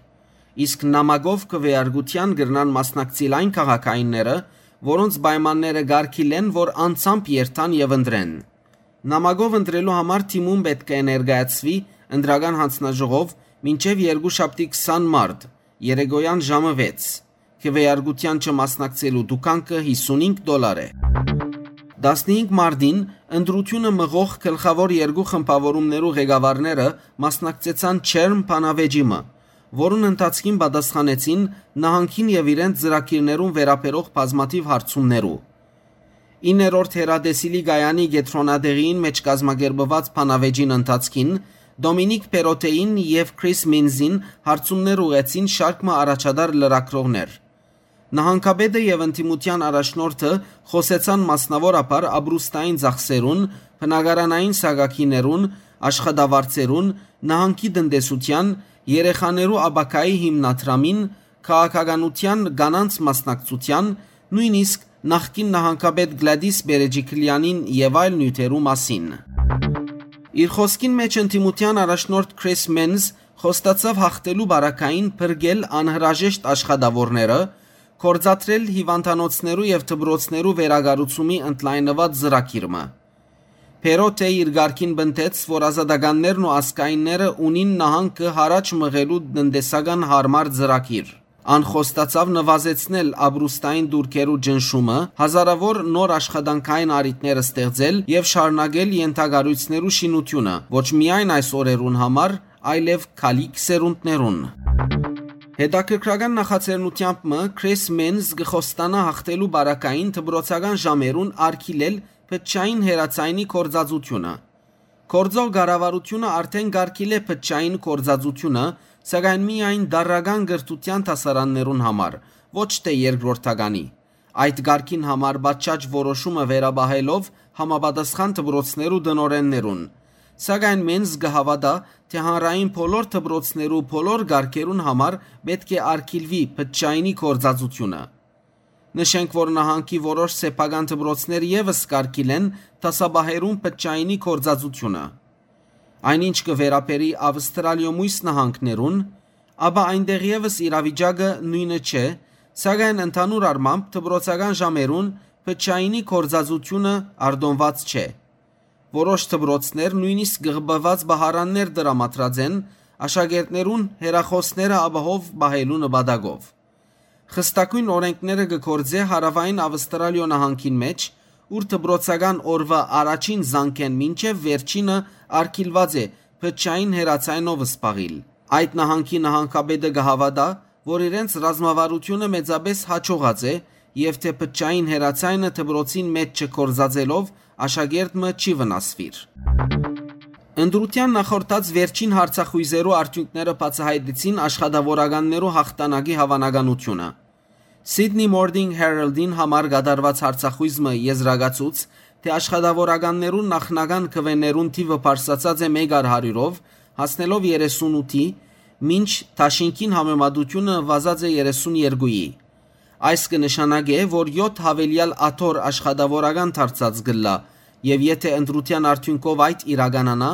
իսկ նամակով քուէարկութեան կրնան մասնակցիլ այն քաղաքայինները, որոնց պայմանները կարգիլեն, որ անձամբ երթան եւ ընտրեն։ Նամակով ընտրելու համար դիմում պէտք է ներկայացուի ընտրական յանձնաժողով մինչեւ երկուշաբթի քսան մարտ, երեկոյան ժամը վեց։ Քուէարկութեան չմասնակցելու դուքանքը յիսունհինգ դոլար է։ Տասնհինգ մարտին ընտրութիւնը մղող գլխաւոր երկու խմբաւորումներու ղեկավարները մասնակցեցան ջերմ բանավեճի մը, որուն ընթացքին պատասխանեցին նահանգին եւ իրենց ծրագիրներուն վերաբերող բազմաթիւ հարցումներու։ Իններորդ հեռատեսիլի կայանի կեդրոնատեղիին մէջ կազմակերպուած բանավեճին ընթացքին Դոմինիկ Փերոթեին եւ Քրիս Մինզին հարցումներ ուղղեցին շարք մը առաջատար լրագրողներ։ Նահանգապետը եւ ընդդիմութեան առաջնորդը խօսեցան մասնաւորաբար ապրուստային ծախսերուն, բնակարանային սակագիներուն, աշխատավարձերուն, նահանգի տնտեսութեան, երեխաներու ապագայի հիմնադրամին, քաղաքականութեան, կանանց մասնակցութեան, նոյնիսկ նախկին նահանգապետ Գլադիս Բերեջիկլեանին եւ այլ նիւթերու մասին։ Իր խօսքին մէջ ընդդիմութեան առաջնորդ Քրիս Մենզ խոստացաւ յաղթելու բարակային փրկել անհրաժեշտ աշխատաւորները, գործադրել հիւանդանոցներու եւ դպրոցներու վերակառուցումի ընդլայնուած ծրագիր մը։ Փերոթ է իր կարգին պնդեց, որ ազատականներն ու ազգայինները ունին նահանգը յառաջ մղելու տնտեսական յարմար ծրագիր։ Ան խոստացաւ նվազեցնել ապրուստային դուրքերու ճնշումը, հազարաւոր նոր աշխատանքային առիթներ ստեղծել եւ շարունակել ենթակառոյցներու շինութիւնը, ոչ միայն այս օրերուն համար, այլեւ գալիք սերունդներուն։ Հետաքրքրական նախաձեռնութեամբ մը Քրիս Մենզ կը խոստանայ յաղթելու բարակային դպրոցական ժամերուն արգիլել բջջային հեռաձայնի գործածութիւնը։ Գործող կառավարութիւնը արդէն կարգիլէ բջջային գործածութիւնը, սակայն միայն տարրական կրթութեան դասարաններուն համար, ոչ թէ երկրորդականի։ Այդ կարգին համար պատշաճ որոշումը վերապահելով համապատասխան դպրոցներու տնօրէններուն։ Սակայն Մենզ կը հաւատայ, թէ հանրային բոլոր դպրոցներու բոլոր կարգերուն համար պէտք է արգիլուի բջջայինի գործածութիւնը։ Նշենք, որ նահանգի որոշ սեփական դպրոցներ եւս կարգիլեն դասապահերուն բջջայինի գործածութիւնը։ Այն ինչ կը վերաբերի Ավստրալիոյ մոյս նահանգներուն, ապա այնտեղ եւս իրավիճակը նոյնը չէ, սակայն ընդհանուր առմամբ դպրոցական ժամերուն բջջայինի գործածութիւնը արտոնուած չէ։ Որոշ դպրոցներ նոյնիսկ կղպուած պահարաններ տրամադրած են աշակերտներուն հեռախօսները ապահով պահելու նպատակով։ Խստագոյն օրէնքները կը գործէ Հարաւային Ավստրալիոյ նահանգին մէջ, ուր դպրոցական օրուայ առաջին զանգէն մինչեւ վերջինը արգիլուած է բջջային հեռաձայնով զբաղիլ։ Այդ նահանգի նահանգապետը կը հաւատայ, որ իրենց ռազմավարութիւնը մեծապէս յաջողած է եւ թէ բջջային հեռաձայնը դպրոցին մէջ չգործածելով աշակերտ մը չի վնասուիր։ Ընտրութեան նախորդած վերջին հարցախոյզերու արդիւնքները բացայայտեցին աշխատաւորականներու յաղթանակի հաւանականութիւնը։ Sydney Morning Herald-ին համար կատարուած հարցախոյզ մը եզրակացուց, թէ աշխատաւորականներուն նախնական քուէներուն թիւը բարձրացած է մէկ առ հարիւրով, հասնելով երեսունութի, մինչ դաշինքին համեմատութիւնը վազած է երեսուն երկուի։ Այս կը նշանակէ, որ եօթ յաւելեալ աթոռ աշխատաւորական դարձած կ'ըլլայ, եւ եթէ ընտրութեան արդիւնքով այդ իրականանայ,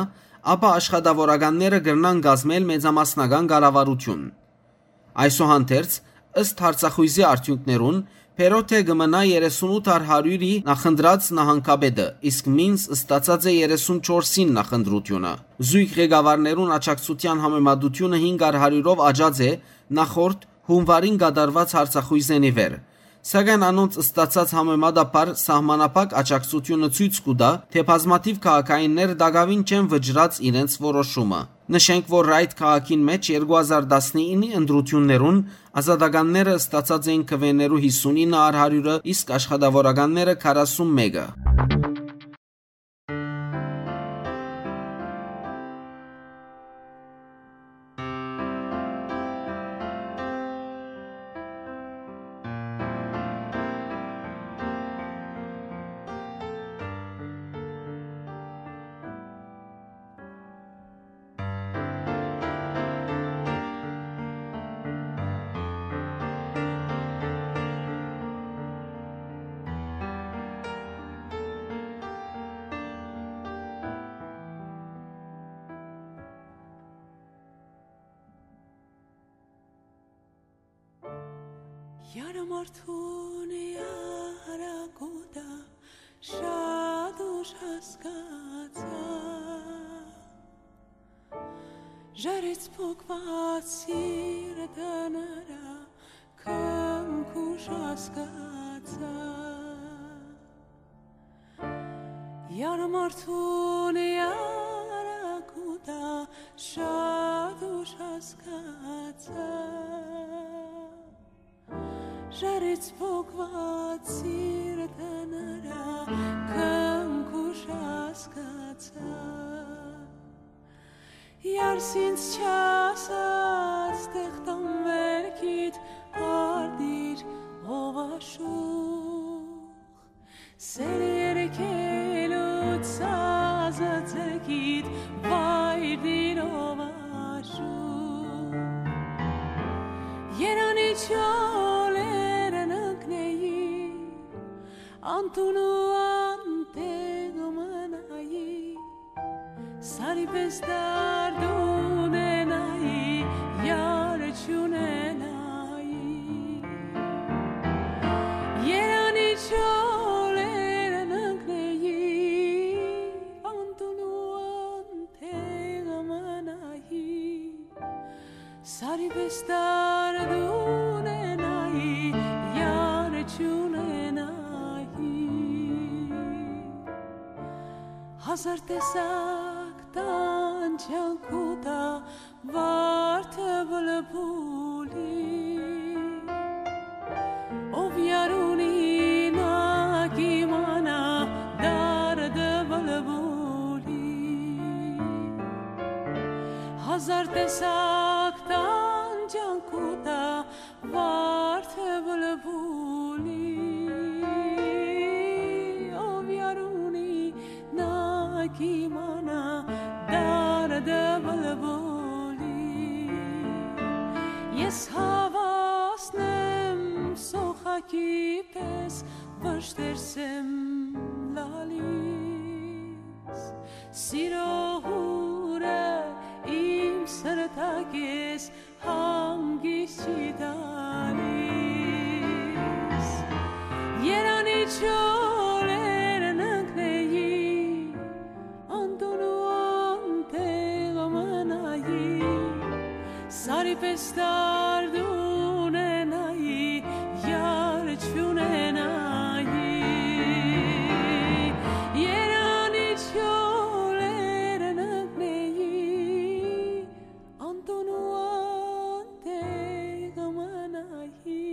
ապա աշխատաւորականները կրնան կազմել մեծամասնական կառավարութիւն։ Այսուհանդերձ, ըստ հարցախոյզի արդիւնքներուն, Perrottet կը մնայ երեսունութ առ հարիւրի նախընտրած նահանգապետը, իսկ Minns ստացած է երեսունչորսին նախընտրութիւնը։ Զոյգ ղեկավարներուն աջակցութեան համեմատութիւնը հինգ առ հարիւրով աճած է նախորդ հունուարին կատարուած հարցախոյզէն ի վեր։ Սակայն անոնց ստացած համեմատաբար սահմանափակ աջակցութիւնը ցոյց կու տայ, թէ բազմաթիւ քաղաքայիններ տակաւին չեն վճռած իրենց որոշումը։ Նշենք, որ Ryde քաղաքին մէջ երկու հազար տասնինի ընտրութիւններուն ազատականները ստացած էին քուէներու հիսունինը առ հարիւրը, իսկ աշխատաւորականները քառասուն մէկը։ Յարմարդուն յարակուտա շատ ուշ հասկացայ, ժարից փոկուած սիրտը նրա քնքուշ հասկացայ։ Յարմարդուն յարակուտա շատ ուշ հասկացայ, ժարից փոկուած սիրտը նրա քնքուշ հասկացայ։ Յարս ինձ չասած, տեղ տան վերքիդ արտիր, ով աշուղ, սեր երգելու սազը ձգիդ վայրդիր, ով աշուղ։ Երանի չոլերն ընկնեի, անտուն ու անտեղ մնայի, սարի պէս դարդ ունենայի, յար չունենայի։ Երանի չոլերն ընկնեի, անտուն ու անտեղ մնայի, սարի պէս դարդ ունենայի, յար չունենայի։ Հազար տեսակ տանջանք ու տա վարդը բլբուլի, ով յար ունի, նա կիմանայ դարդը բլբուլի։ Հազար տեսակ տանջանք ու տա վարդը բլբուլի, ով յար ունի, նա կիմանայ դարդը բլբուլի։ Ես հաւասնեմ սոխակի պէս, վշտերս եմ լալիս, սիրո հուրը իմ սրտակէս հանգիստ չի տալիս։ Երանի չոլերն ընկնեի, անտուն ու անտեղ մնայի, սարի պէս դարդ ունենայի, յար չունենայի։ Երանի չոլերն ընկնեի, անտուն ու անտեղ մնայի,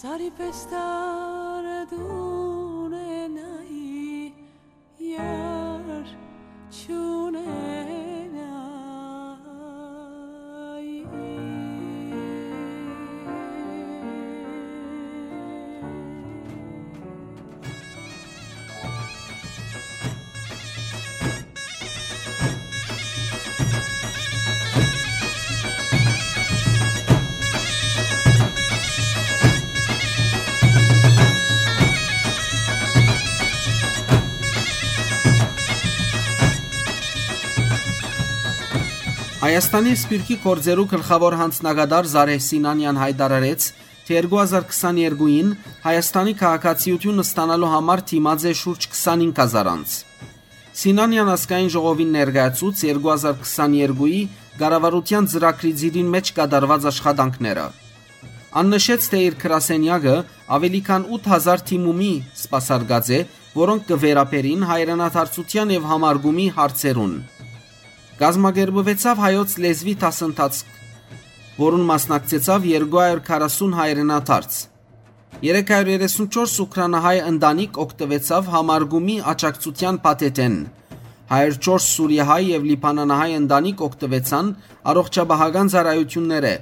սարի պէս դարդ ունենայի, յար Հայաստանի սփիւռքի գործերու գլխաւոր յանձնակատար Զարեհ Սինանեան յայտարարեց, թէ երկու հազար քսաներկուին Հայաստանի քաղաքացիութիւն ստանալու համար դիմած է շուրջ քսանհինգ հազար անձ։ Սինանեան ազգային ժողովին ներկայացուց երկու հազար քսաներկուի կառավարութեան ծրագրի ծիրին մէջ կատարուած աշխատանքները։ Ան նշեց, թէ իր գրասենեակը աւելի քան ութ հազար դիմումի սպասարկած է, որոնք կը վերաբերին հայրենադարձութեան եւ համարկումի հարցերուն։ Կազմակերպուեցաւ հայոց լեզուի դասընթացք, որուն մասնակցեցաւ երկու հարիւր քառասուն հայրենադարձ։ Երեք հարիւր երեսունչորս ուկրանահայ ընտանիք օգտուեցաւ համարկումի աջակցութեան փաթեթէն։ Հարիւր չորս սուրիահայ եւ լիբանանահայ ընտանիք օգտուեցան առողջապահական ծառայութիւններէ։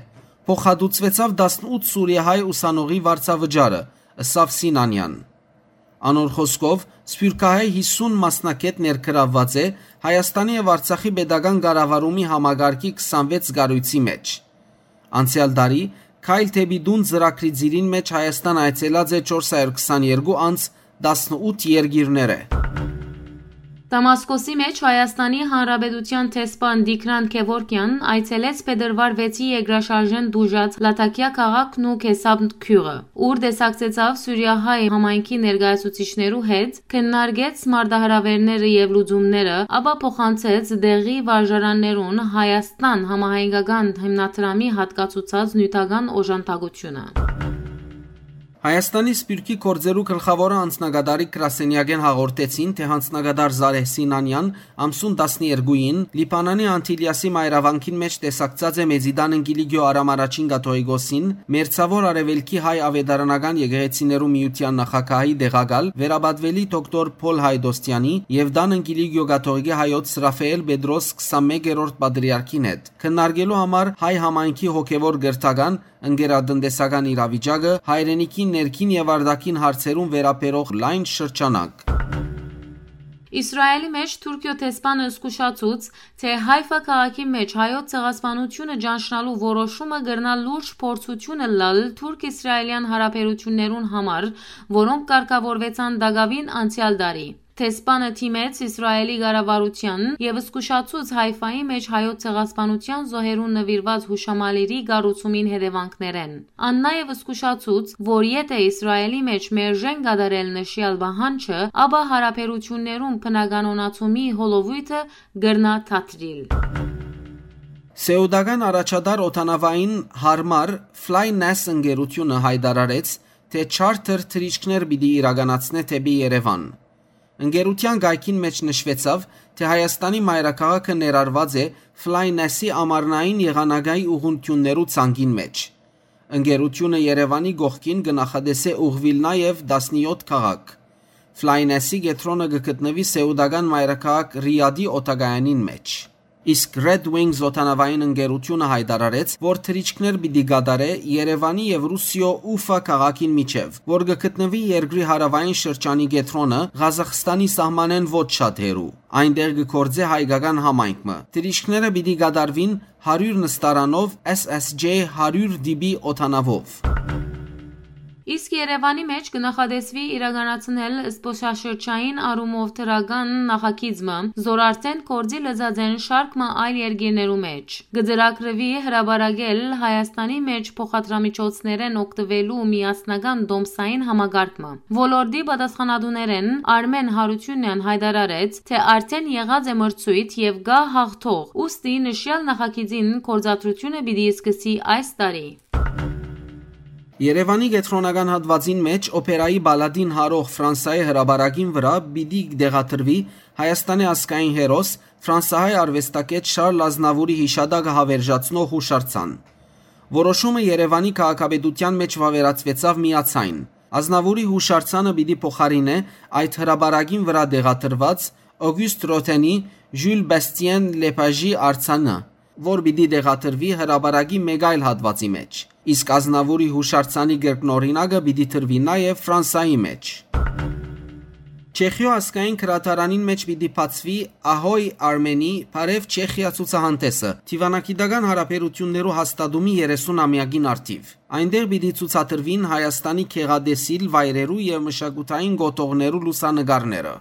Փոխհատուցուեցաւ տասնութ սուրիահայ ուսանողի վարձավճարը, ըսաւ Սինանեան։ Անոր խօսքով, սփիւռքահայ յիսուն մասնագէտ ներգրաւուած է Հայաստանի եւ Արցախի պետական կառավարումի համակարգի քսանվեց կառոյցի մէջ։ Անցեալ տարի «Քայլ դէպի տուն» ծրագրի ծիրին մէջ Հայաստան այցելած է չորս հարիւր քսաներկու անձ, տասնութ երկիրներէ։ Դամասկոսի մէջ Հայաստանի Հանրապետութեան դեսպան Տիգրան Գեւորգեան այցելեց փետրուար վեցի երկրաշարժէն տուժած Լաթաքիա քաղաքն ու Քեսապ գիւղը, ուր տեսակցեցաւ սուրիահայ համայնքի ներկայացուցիչներու հետ, քննարկեց մարտահրաւէրները եւ լուծումները, ապա փոխանցեց տեղի վարժարաններուն Հայաստան համահայկական հիմնադրամի յատկացուցած նիւթական օժանդակութիւնը։ Հայաստանի սփիւռքի գործերու գլխաւոր անձնակատարի գրասենեակէն հաղորդեցին, թէ անձնակատար Զարեհ Սինանեան ամսուն տասներկուին Լիբանանի Անտիլիասի մայրավանքին մէջ տեսակցած է Մեծի Տան Ընկիլիգիո Արամ Առաջին Կաթողիկոսին, Մերձաւոր Արեւելքի հայ աւետարանական եկեղեցիներու միութեան նախագահի տեղակալ, վերապատուելի դոկտոր Փոլ Հայդոստեանի եւ Տան Ընկիլիգիո Կաթողիկի հայոց Ռաֆայել Պետրոս քսանմեկերորդ պատրիարքին հետ, քննարկելու համար հայ համայնքի հոգեւոր կրթական, ընկերատնտեսական իրավիճակը, հայրենիքի ներքին եւ արտաքին հարցերուն վերաբերող լայն շրջանակ։ Իսրայելի մէջ Թուրքիոյ դեսպանը զգուշացուց, թէ Հայֆա քաղաքի մէջ հայոց ցեղասպանութիւնը ճանչնալու որոշումը կրնայ լուրջ փորձութիւն ըլլալ թուրք-իսրայելեան յարաբերութիւններուն համար, որոնք կարգաւորուեցան տակաւին անցեալ տարի։ Դեսպանը դիմեց Իսրայելի կառավարութեան եւ զգուշացուց Հայֆայի մէջ հայոց ցեղասպանութեան զոհերուն նուիրուած յուշամալիրի կառուցումին հետեւանքներէն։ Ան նաեւ զգուշացուց, որ եթէ Իսրայելի մէջ մերժեն կատարել նշեալ պահանջը, ապա յարաբերութիւններուն բնականոնացումի հոլովոյթը կրնայ դադրիլ։ Սեուտական առաջատար օդանաւային յարմար Fly N A S ընկերութիւնը յայտարարեց, թէ չարթըր թռիչքներ պիտի իրականացնէ դէպի Երեւան։ Ընկերութեան կայքին մէջ նշուեցաւ, թէ Հայաստանի մայրաքաղաքը ներառուած է Fly N A S-ի ամառնային եղանակային ուղղութիւններու ցանկին մէջ։ Ընկերութիւնը Երեւանի կողքին կը նախատեսէ ուղղուիլ նաեւ տասնեօթ քաղաք։ Fly N A S-ի կեդրոնը կը գտնուի սեուտական մայրաքաղաք Ռիադի օդակայանին մէջ։ Իսկ Red Wings օդանաւային ընկերութիւնը յայտարարեց, որ թռիչքներ պիտի կատարէ Երեւանի եւ Ռուսիոյ Ուֆա քաղաքին միջեւ, որ կը գտնուի երկրի հարաւային շրջանի կեդրոնը, Ղազախստանի սահմանէն ոչ շատ հեռու։ Այնտեղ կը գործէ հայկական համայնք մը։ Թռիչքները պիտի կատարուին հարիւր նստարանով S S J հարիւր D B օդանաւով։ Իսկ Երեւանի մէջ կը նախատեսուի իրականացնել զբօսաշրջային առումով դրական նախագիծ մը, զոր արդէն գործի լծած են շարք մը այլ երկիրներու մէջ։ Կը ծրագրուի հրապարակել Հայաստանի մէջ փոխադրամիջոցներէն օգտուելու միասնական տոմսային համակարգ մը։ Ոլորտի պատասխանատուներէն Արմէն Յարութիւնեան յայտարարեց, թէ արդէն եղած է մրցոյթ եւ կայ յաղթող, ուստի նշեալ նախագիծին գործադրութիւնը պիտի սկսի այս տարի։ Երեւանի կեդրոնական հատուածին մէջ օփերայի պալատին յարող Ֆրանսայի հրապարակին վրայ պիտի տեղադրուի Հայաստանի ազգային հերոս, ֆրանսահայ արուեստագէտ Շարլ Ազնավուրի յիշատակը հաւերժացնող յուշարձան։ Որոշումը Երեւանի քաղաքապետութեան մէջ վաւերացուեցաւ միացայն։ Ազնավուրի յուշարձանը պիտի փոխարինէ այդ հրապարակին վրայ տեղադրուած Օգիուստ Ռոթենի Ժյուլ Բաստիեն Լեպաժի արձանը, որ պիտի տեղադրուի հրապարակի մէկ այլ հատուածի մէջ, իսկ Ազնավուրի յուշարձանի կրկնօրինակը պիտի տրուի նաեւ Ֆրանսայի մէջ։ Չեխիոյ ազգային գրադարանին մէջ պիտի բացուի Ահոյ Արմենի Բարեւ Չեխիա ցուցահանդէսը, դիվանագիտական յարաբերութիւններու հաստատումի երեսուն ամեակին առթիւ։ Այնտեղ պիտի ցուցադրուին Հայաստանի գեղատեսիլ վայրերու եւ մշակութային կոթողներու լուսանկարները։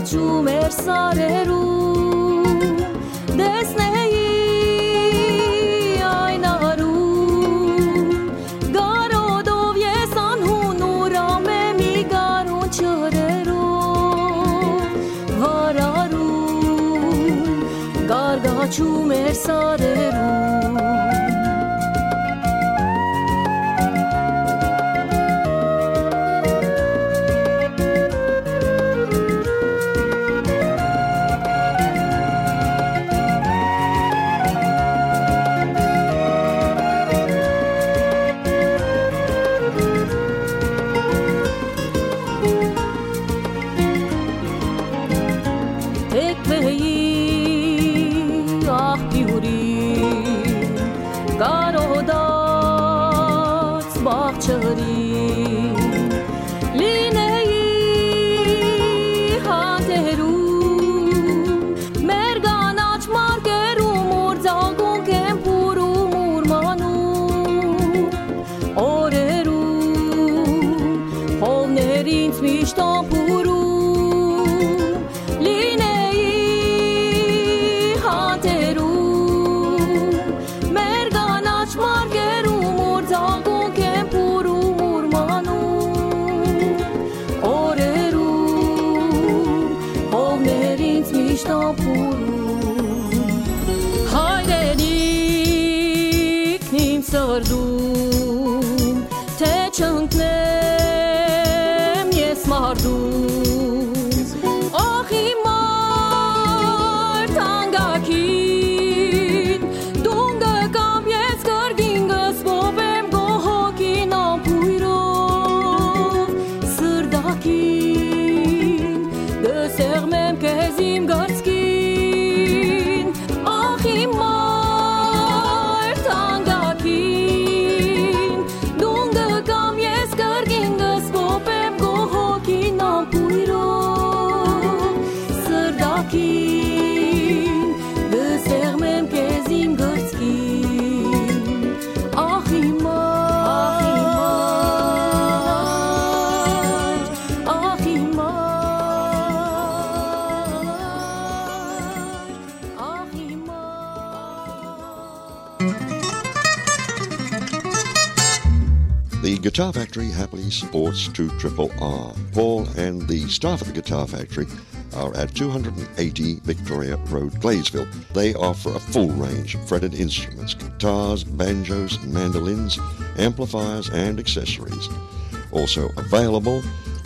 Չու մեր սարերուն, տեսնեի այն արուն, կարոտով ես անհուն ուրամ եմ, ի գարուն ջրերով վարարուն, կարգաչու մեր սարերուն։ Թեքվեի աղբիուրին, կարոտած բաղ ջրին, լինեի հատերում, մեր կանաչ մարկերում, ուր ձաղկունք են փուռում, ուրմանում օրերուն, խովներ ինձ միշտ ամփուրում, լինեի հատերում, մեր կանաչ մարկերում, ուր ձաղկունք են փուռում, ուրմանում օրերուն, խովներ ինձ միշտ ամփուրում։ Հայրենիքն իմ սրտում, թէ չընկնեմ ես մարտում։ Ախ, իմ մարդ անգակին, դուն կը կամ ես կրկին կսպոպեմ քո հոգին ամբոյրով, սրտակին կսեղմեմ քեզ իմ կրծքին։ Ախ, իմ մարդ անգակին, դուն կը կամ ես կրկին կսպոպեմ քո հոգին ամբոյրով, սրտակին կսեղմեմ քեզ իմ կրծքին։ Ախ, իմ մարդ, ախ, իմ մարդ, ախ, իմ մարդ։ The Guitar Factory happily supports two triple R. Paul and the staff at the Guitar Factory are at two hundred and eighty Victoria Road, Gladesville. They offer a full range of fretted instruments, guitars, banjos, mandolins, amplifiers, and accessories. Also available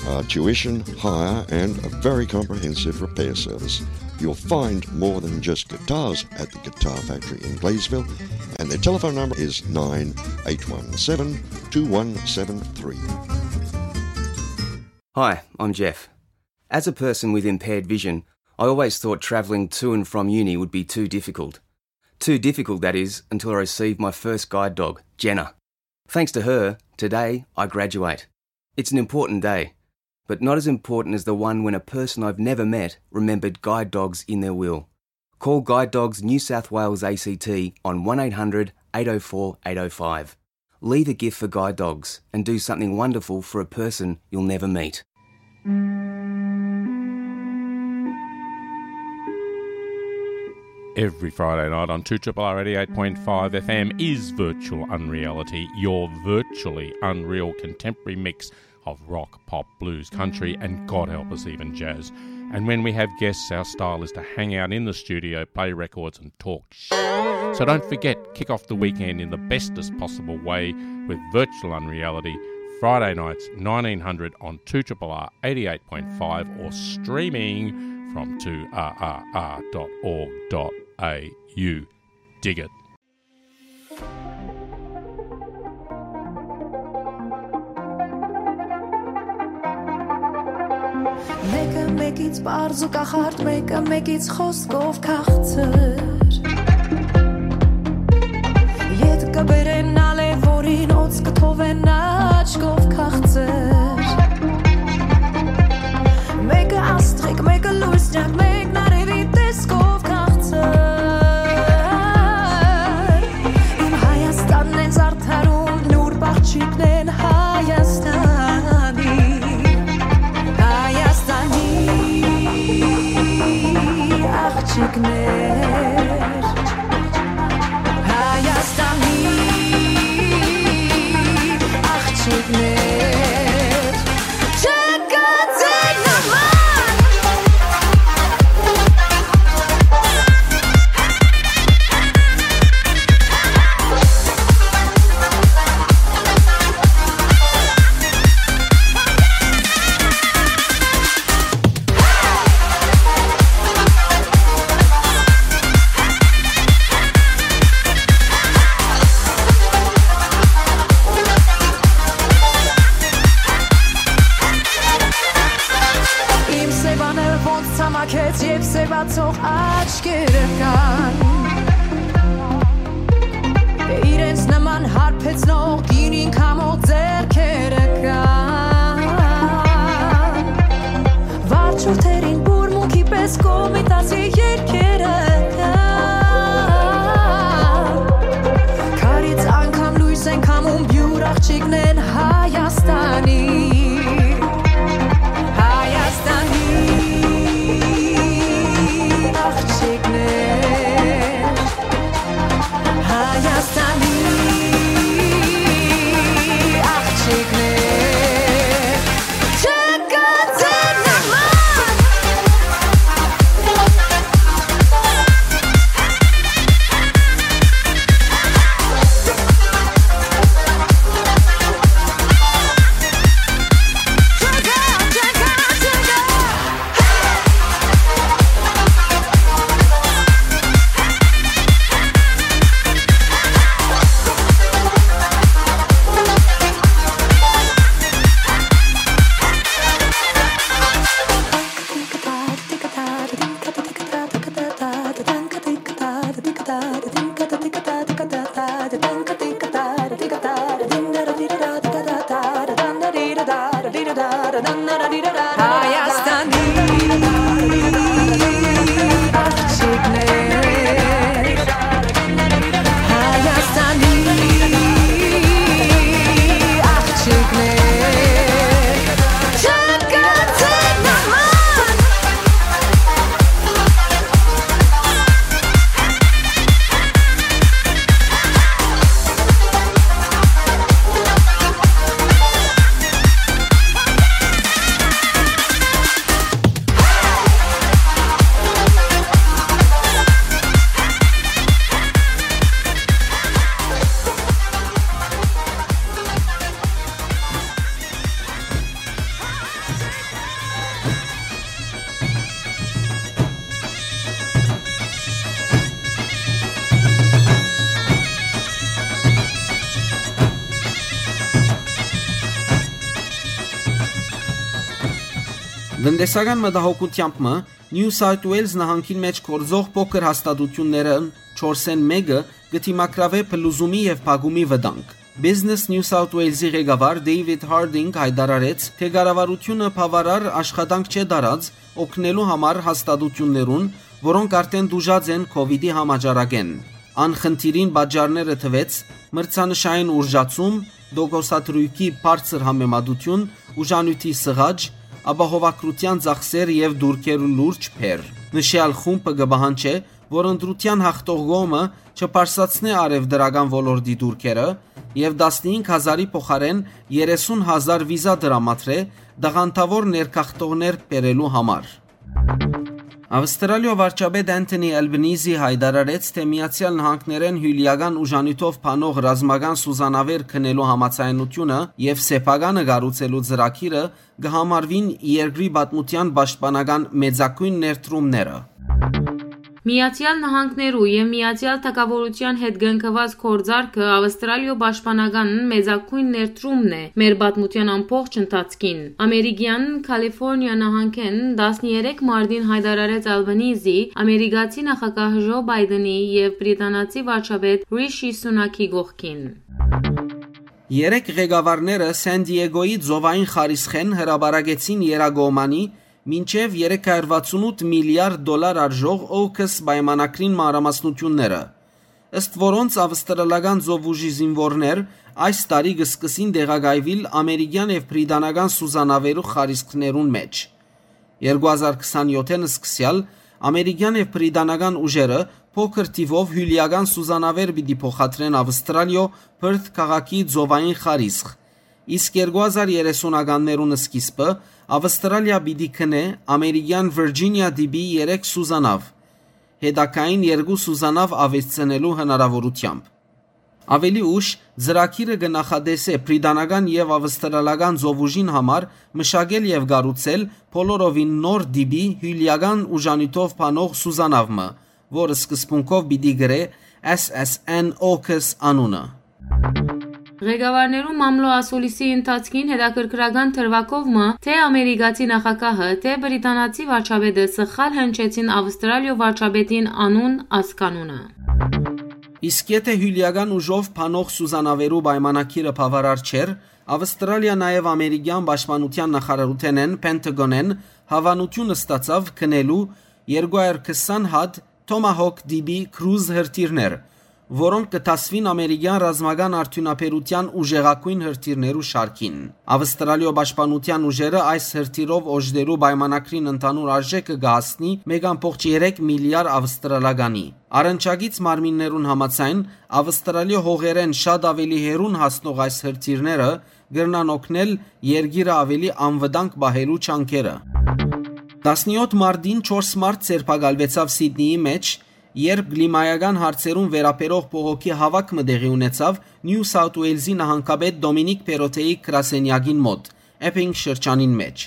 are tuition, hire, and a very comprehensive repair service. You'll find more than just guitars at the Guitar Factory in Gladesville, and their telephone number is nine eight one seven two one seven three. Hi, I'm Jeff. As a person with impaired vision, I always thought travelling to and from uni would be too difficult. Too difficult, that is, until I received my first guide dog, Jenna. Thanks to her, today I graduate. It's an important day, but not as important as the one when a person I've never met remembered guide dogs in their will. Call Guide Dogs New South Wales A C T on one eight hundred eight oh four eight oh five. Leave a gift for Guide Dogs and do something wonderful for a person you'll never meet. Every Friday night on two triple R eighty-eight point five F M is Virtual Unreality, your virtually unreal contemporary mix of rock, pop, blues, country, and God help us, even jazz. And when we have guests, our style is to hang out in the studio, play records, and talk sh-. So don't forget, kick off the weekend in the bestest possible way with Virtual Unreality, Friday nights, nineteen hundred on two triple R eighty-eight point five, or streaming from two R R R dot org dot A U. Dig it. Մեկը մեկից պարզ ու կախարդ, մեկը մեկից խոսքով քաղցր։ Ետ կը բերեն ալեւ, որին օծ կը թողեն աչքով քաղցր։ Մեկը աստղիկ, մեկը լուսնյակ, մեկն արևի տեսքով քաղցր։ Իմ Հայաստանն են զարդարում նուրբ աղջիկներն Հայաստանի, Հայաստանի։ Կոմիտասի երկերը. Քարից անգամ լույս են քամում, բիւր աղջիկներն Հայաստանի, Հայաստանի աղջիկներ, Հայաստանի աղջիկներ, չկա ձեր նման։ Հայաստանի աղջիկներ, Հայաստանի աղջիկներ, չկա ձեր նման։ Տնտեսական մտահոգութեամբ մը New South Wales նահանգին մէջ գործող փոքր հաստատութիւններէն չորսէն մէկը կը դիմագրաւէ փլուզումի եւ փակումի վտանգ։ Business New South Wales-ի ղեկավար David Harding յայտարարեց, թէ կառավարութիւնը բաւարար աշխատանք չէ տարած օգնելու համար հաստատութիւններուն, որոնք արդէն տուժած են COVID-ի համաճարակէն։ Ան խնդիրին պատճառները թուեց մրցանշային ուժացում, տոկոսադրոյքի բարձր համեմատութիւն, ուժանիւթի սղաճ, ապահովագրութեան ծախսեր եւ տուրքերու լուրջ բեռ։ Նշեալ խումբը կը պահանջէ, որ ընտրութեան յաղթող կողմը չբարձրացնէ առեւտրական ոլորտի տուրքերը եւ տասնհինգ հազարի փոխարէն երեսուն հազար վիզա տրամադրէ տաղանդաւոր ներգաղթողներ բերելու համար։ Ավստրալիոյ վարչապետ Anthony Albanese յայտարարեց, թէ Միացեալ Նահանգներէն հիւլիական ուժանիւթով բանող ռազմական սուզանաւեր գնելու համաձայնութիւնը եւ սեփականը կառուցելու ծրագիրը կը համարուին երկրի պատմութեան պաշտպանական մեծագոյն ներդրումները։ Միացեալ Նահանգներու եւ Միացեալ Թագաւորութեան հետ կնքուած գործարքը Ավստրալիոյ պաշտպանական մեծագոյն ներդրումն է մեր պատմութեան ամբողջ ընթացքին։ Ամերիկեան Քալիֆորնիա նահանգէն տասներեք մարտին յայտարարեց Ալբանիզի, ամերիկացի նախագահ Ժո Պայդենի եւ բրիտանացի վարչապետ Ռիշի Սունակի կողքին։ Երեք ղեկավարները Սան Դիեգոյի ծովային խարիսխէն հրապարակեցին եռակողմանի մինչեւ երեք հարյուր վաթսուն ութ միլիարդ դոլար արժող ཨոքս պայմանագրին մանրամասնութիւնները, ըստ որոնց ավստրալական ծովուժի զինուորներ այս տարի կը սկսին տեղակայուիլ ամերիկեան եւ բրիտանական սուզանաւերու խարիսխներուն մէջ։ Երկու հազար քսանեթին սկսեալ ամերիկեան եւ բրիտանական ուժերը փոքր թիւով հիւլիական սուզանաւեր պիտի փոխադրեն Ավստրալիոյ Պըրթ քաղաքի ծովային խարիսխ, իսկ երկու հազար երեսունականներուն սկիզբը Ավստրալիա պիտի գնէ ամերիկեան Վիրջինիա տիպի երեք սուզանաւ, հետագային երկու սուզանաւ աւելցնելու հնարաւորութեամբ։ Աւելի ուշ, ծրագիրը կը նախատեսէ բրիտանական եւ ավստրալական ծովուժին համար մշակել եւ կառուցել բոլորովին նոր տիպի հիւլիական ուժանիւթով բանող սուզանաւ մը, որ սկզբունքով պիտի կրէ S S N ཨոքս անունը։ Ղեկավարներու մամլոյ ասուլիսի ընթացքին հետաքրքրական դրուագով մը, թէ ամերիկացի նախագահը, թէ բրիտանացի վարչապետը սխալ հնչեցին Ավստրալիոյ վարչապետին անուն ազգանունը։ Իսկ եթէ հիւլիական ուժով բանող սուզանաւերու պայմանագիրը բաւարար չէր, Ավստրալիա նաեւ ամերիկեան պաշտպանութեան նախարարութենէն, Պենտագոնէն, հաւանութիւն ստացաւ գնելու երկու հարիւր քսան հատ Tomahawk D B Cruise հրթիռներ, որոնք կը դասուին ամերիկեան ռազմական արդիւնաբերութեան ուժեղագոյն հրթիռներու շարքին։ Ավստրալիոյ պաշտպանութեան ուժերը այս հրթիռով օժտելու պայմանագրին ընդհանուր արժէքը կը հասնի մէկ ամբողջ երեք միլիարդ ավստրալականի։ Առնչակից մարմիններուն համաձայն, Ավստրալիոյ հողերէն շատ աւելի հեռուն հասնող այս հրթիռները կրնան օգնել երկիրը աւելի անվտանգ պահելու ջանքերը։ Տասնեօթ մարտին չորս մարդ ձերբակալուեցաւ Սիդնիի մէջ, երբ կլիմայական հարցերուն վերաբերող բողոքի հաւաք մը տեղի ունեցաւ Նիու Սաութ Ուէյլզի նահանգապետ Դոմինիկ Պերոթեի գրասենեակին մօտ, Էփինգ շրջանին մէջ։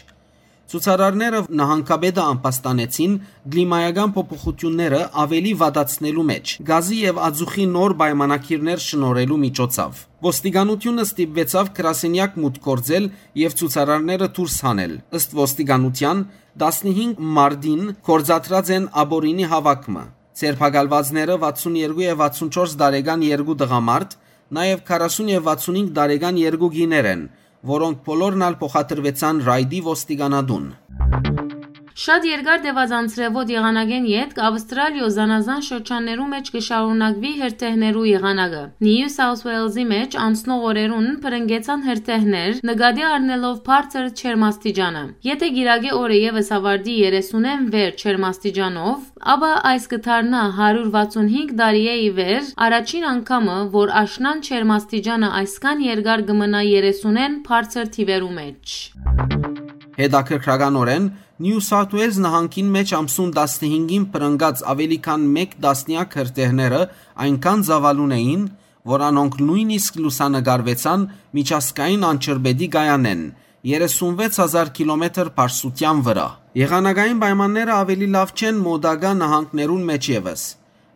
Ցուցարարները նահանգապետը ամբաստանեցին կլիմայական փոփոխութիւնները աւելի վատացնելու մէջ, գազի եւ ածուխի նոր պայմանագիրներ շնորհելու միջոցով։ Ոստիկանութիւնը ստիպուեցաւ գրասենեակ մուտք գործել եւ ցուցարարները դուրս հանել։ Ըստ ոստիկանութեան, տասնհինգ մարտին գործադրած են աբորինի հաւաք մը։ Ձերբակալուածները վաթսուն երկու եւ վաթսուն չորս տարեկան երկու տղամարդ, նաեւ քառասուն եւ վաթսուն հինգ տարեկան երկու կիներ են, որոնք բոլորն ալ փոխադրուեցան Ռայդի ոստիկանատուն։ Շատ երկար տեւած անձրեւոտ եղանակէն ետք Ավստրալիոյ զանազան շրջաններու մէջ կը շարունակուի հրդեհներու եղանակը։ Նիու Սաութ Ուէյլզի մէջ անցնող օրերուն բռնկեցան հրդեհներ, նկատի առնելով բարձր ջերմաստիճանը։ Եթէ կիրակի օրը եւս աւարտի երեսունէն վեր ջերմաստիճանով, ապա այս կը դառնայ հարիւր վաթսուն հինգ տարիէ ի վեր առաջին անգամը, որ աշնան ջերմաստիճանը այսքան երկար կը մնայ երեսունէն բարձր թիւերու մէջ։ Հետաքրքրականօրէն, Նիու Սաութ Ուէյլզ նահանգին մէջ ամսուն տասնհինգին բռնկած աւելի քան մէկ տասնեակ հրդեհները այնքան ծաւալուն էին, որ անոնք նոյնիսկ լուսանկարուեցան միջազգային անջրպետի կայանէն, երեսունվեց հազար կիլոմետր բարձրութեան վրայ։ Եղանակային պայմանները աւելի լաւ չեն մօտակայ նահանգներուն մէջ եւս։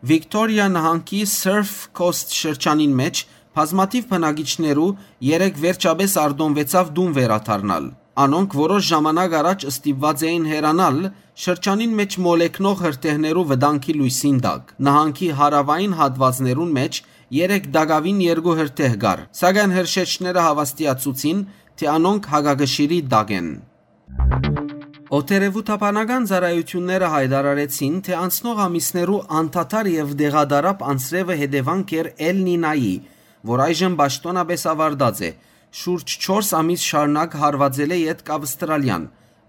Վիկտորիա նահանգի Surf Coast շրջանին մէջ բազմաթիւ բնակիչներու երեկ վերջապէս արտոնուեցաւ տուն վերադառնալ։ Անոնք որոշ ժամանակ առաջ ստիպուած էին հեռանալ շրջանին մէջ մոլեգնող հրդեհներու վտանգի լոյսին տակ։ Նահանգի հարաւային հատուածներուն մէջ երեկ տակաւին երկու հրդեհ կար, սակայն հրշեջները հաւաստիացուցին, թէ անոնք հակակշիռի տակ են։ Օդերեւութաբանական ծառայութիւնները յայտարարեցին, թէ անցնող ամիսներու անդադար եւ տեղատարափ անձրեւը հետեւանք էր Էլ Նինայի, որ այժմ պաշտօնապէս աւարտած է, շուրջ չորս ամիս շարունակ հարուածելէ ետք Ավստրալիան,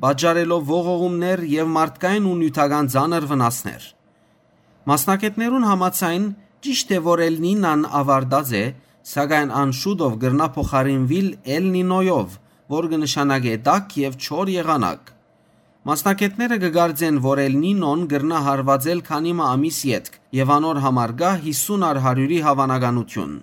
պատճառելով ողողումներ եւ մարդկային ու նիւթական ծանր վնասներ։ Մասնագէտներուն համաձայն, ճիշդ է, որ Էլ Նինան աւարտած է, սակայն ան շուտով կրնայ փոխարինուիլ Էլ Նինոյով, որ կը նշանակէ տաք եւ չոր եղանակ։ Մասնագէտները կը կարծեն, որ Էլ Նինոն կրնայ հարուածել քանի մը ամիս ետք եւ անոր համար կայ յիսուն առ հարիւրի հաւանականութիւն։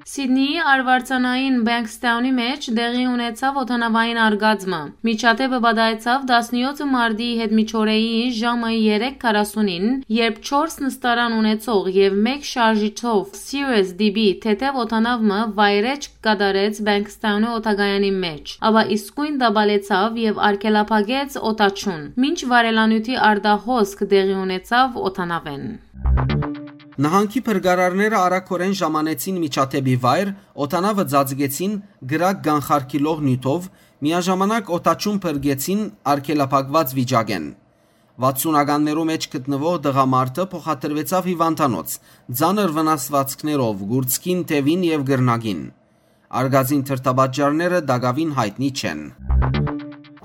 Սիդնիի արուարձանային Բենքսթաունի մէջ տեղի ունեցաւ օդանաւային արկածը։ Միջադէպը պատահեցաւ տասնեօթը մարտի յետմիջօրեի ժամը երեք քառասունին, երբ չորս նստարան ունեցող եւ մէկ շարժիչով Cirrus D B թեթեւ օդանաւ մը վայրէջք կատարեց Բենքսթաունի օդակայանի մէջ, ապա իսկոյն տապալեցաւ եւ արգելափակեց օդաչուն, մինչ վառելանիւթի արտահոսք տեղի ունեցաւ օդանաւէն։ Նահանգի փրկարարները արագօրէն ժամանեցին միջադէպի վայր, օդանաւը ծածկեցին կրակ կանխարգիլող նիւթով, միաժամանակ օդաչուն փրկեցին արգելափակված վիճակէն։ Վաթսունականներու մէջ գտնուող տղամարդը փոխադրուեցաւ հիւանդանոց, ծանր վնասուածքներով, կուրծքին, թեւին եւ կռնակին։ Արկածին դրդապատճառները տակաւին յայտնի չեն։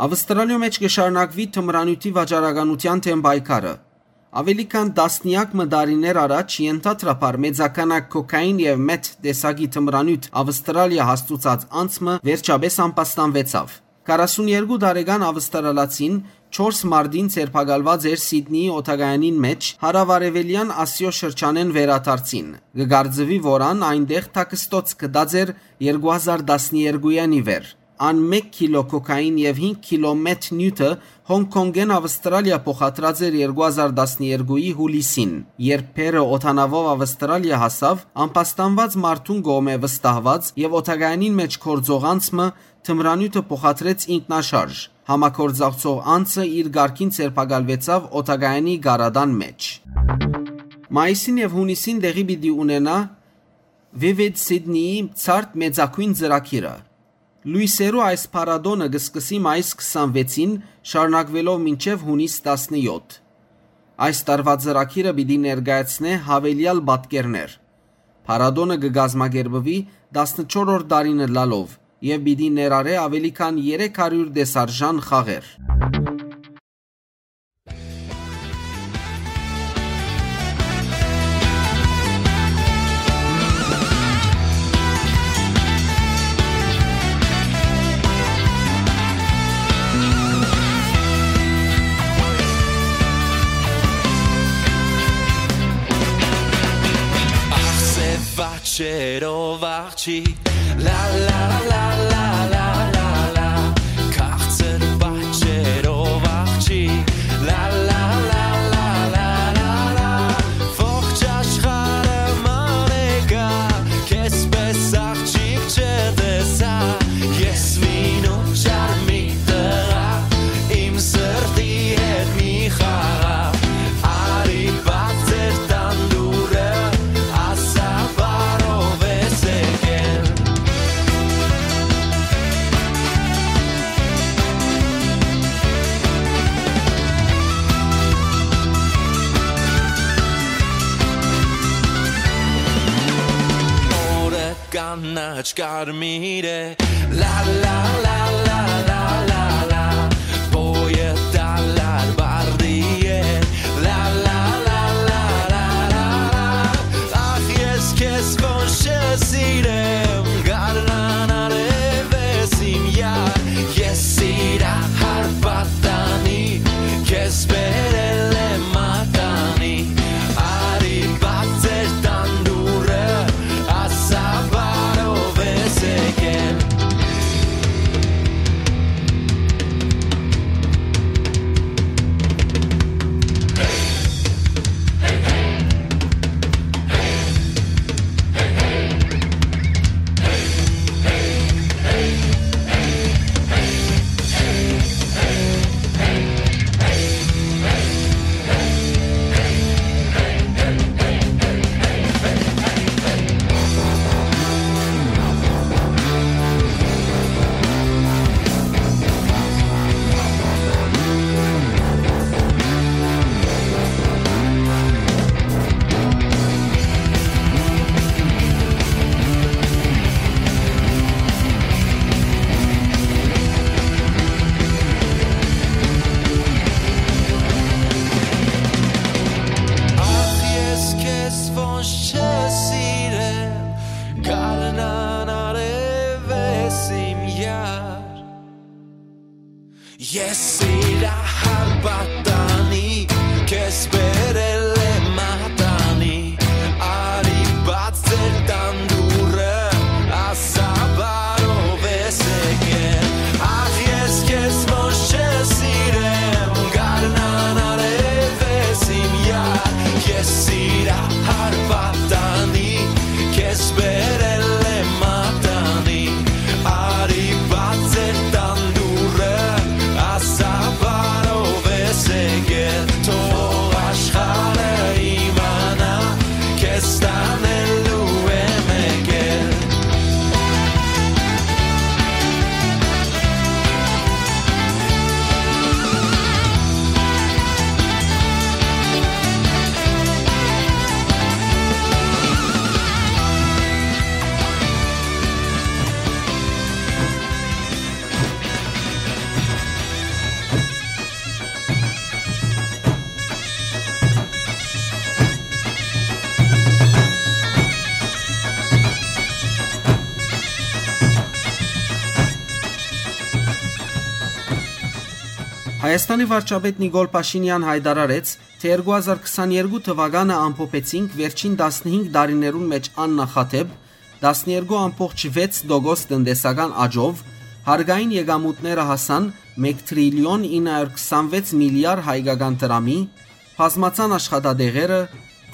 Ավստրալիոյ մէջ կը շարունակուի թմրանիւթի վաճառականութեան դէմ պայքարը։ Աւելի քան տասնեակ մը տարիներ առաջ ենթադրաբար մեծաքանակ կոքային եւ մեթ տեսակի թմրանիւթ Ավստրալիա հասցուցած անձ մը վերջապէս ամբաստանուեցաւ։ Քառասուն երկու տարեկան ավստրալացին չորս մարտին ձերբակալուած էր Սիդնիի օդակայանին մէջ հարաւարեւելեան Ասիոյ շրջանէն վերադարձին։ Կը կարծուի, որ ան այնտեղ թաքստոց գտած էր երկու հազար տասներկուին ի վեր։ Ան մէկ քիլո կոքային եւ հինգ քիլո մեթ նիւթը Հոնկ Քոնկէն Ավստրալիա փոխադրած էր երկու հազար տասներկուի յուլիսին, երբ բեռը օդանաւով Ավստրալիա հասաւ, ամբաստանուած մարդուն կողմէ վստահուած եւ օդակայանին մէջ գործող անձ մը թմրանիւթը փոխադրեց ինքնաշարժ։ Համագործակցող անձը իր կարգին ձերբակալուեցաւ օդակայանի գարատան մէջ։ Մայիսին եւ յունիսին տեղի պիտի ունենայ Vivid Sydney-ի ցարդ մեծագոյն ծրագիրը։ Լոյսերու այս փառատոնը կը սկսի մայիս քսանվեցին, շարունակուելով մինչեւ յունիս տասնեօթ։ Այս տարուայ ծրագիրը պիտի ներկայացնէ յաւելեալ պատկերներ։ Փառատոնը կը կազմակերպուի տասնչորրորդ տարին ըլլալով եւ պիտի ներառէ աւելի քան երեք հարիւր տեսարժան խաղեր։ Ախսե պատճերով աղջի, լա, լա, լա, լա, լա, լա, լա, քաղցր պատճերով աղջի, լա, լա, լա, լա, լա, լա, լա, ողջ աշխարհը մանեկա, քեզպէս աղջիկ չտեսա, ես մինու չար մի տղայ, իմ սրտի հետ մի խաղաղ, արի բաց էր տան դուռը, ասա բարով ես եկել։ Օրը կանաչ կարմիր է, լա, լա, լա, լա, լա, լա, լա, բոյը դալար բարդի է, լա, լա, լա, լա, լա, լա, լա, ախ, ես քեզ ոնց չսիրեմ, գարնան արև ես իմ յար, ես սիրահար պատանի, քեզ բերել եմ մատանի, արի բաց էր տան դուռը, ասա բարով ես եկել։ Ախ, ես քեզ ոնց չսիրեմ, գարնան արև ես իմ յար։ Ես սիրահար պատանի, քեզ բերել եմ մատանի, արի բաց էր տան դուռը, ասա բարով ես եկել։ Ախ, ես քեզ ոնց չսիրեմ, գարնան արև ես իմ յար, ես սիրահար պատանի, քեզ բերել եմ մատանի, արի բաց էր տան դուռը, ասա բարով ես եկել, թող աշխարհը իմանայ, քեզ տանելու եմ եկել։ Հայաստանի վարչապետ Նիկոլ Փաշինեան յայտարարեց, թէ երկու հազար քսաներկու թուականը ամփոփեցինք վերջին տասնհինգ տարիներուն մէջ աննախադէպ տասներկու ամբողջ վեց տոկոս տնտեսական աճով, հարկային եկամուտները հասան մեկ տրիլիոն ինը հարյուր քսանվեց միլիարդ հայկական դրամի, բազմացան աշխատատեղերը,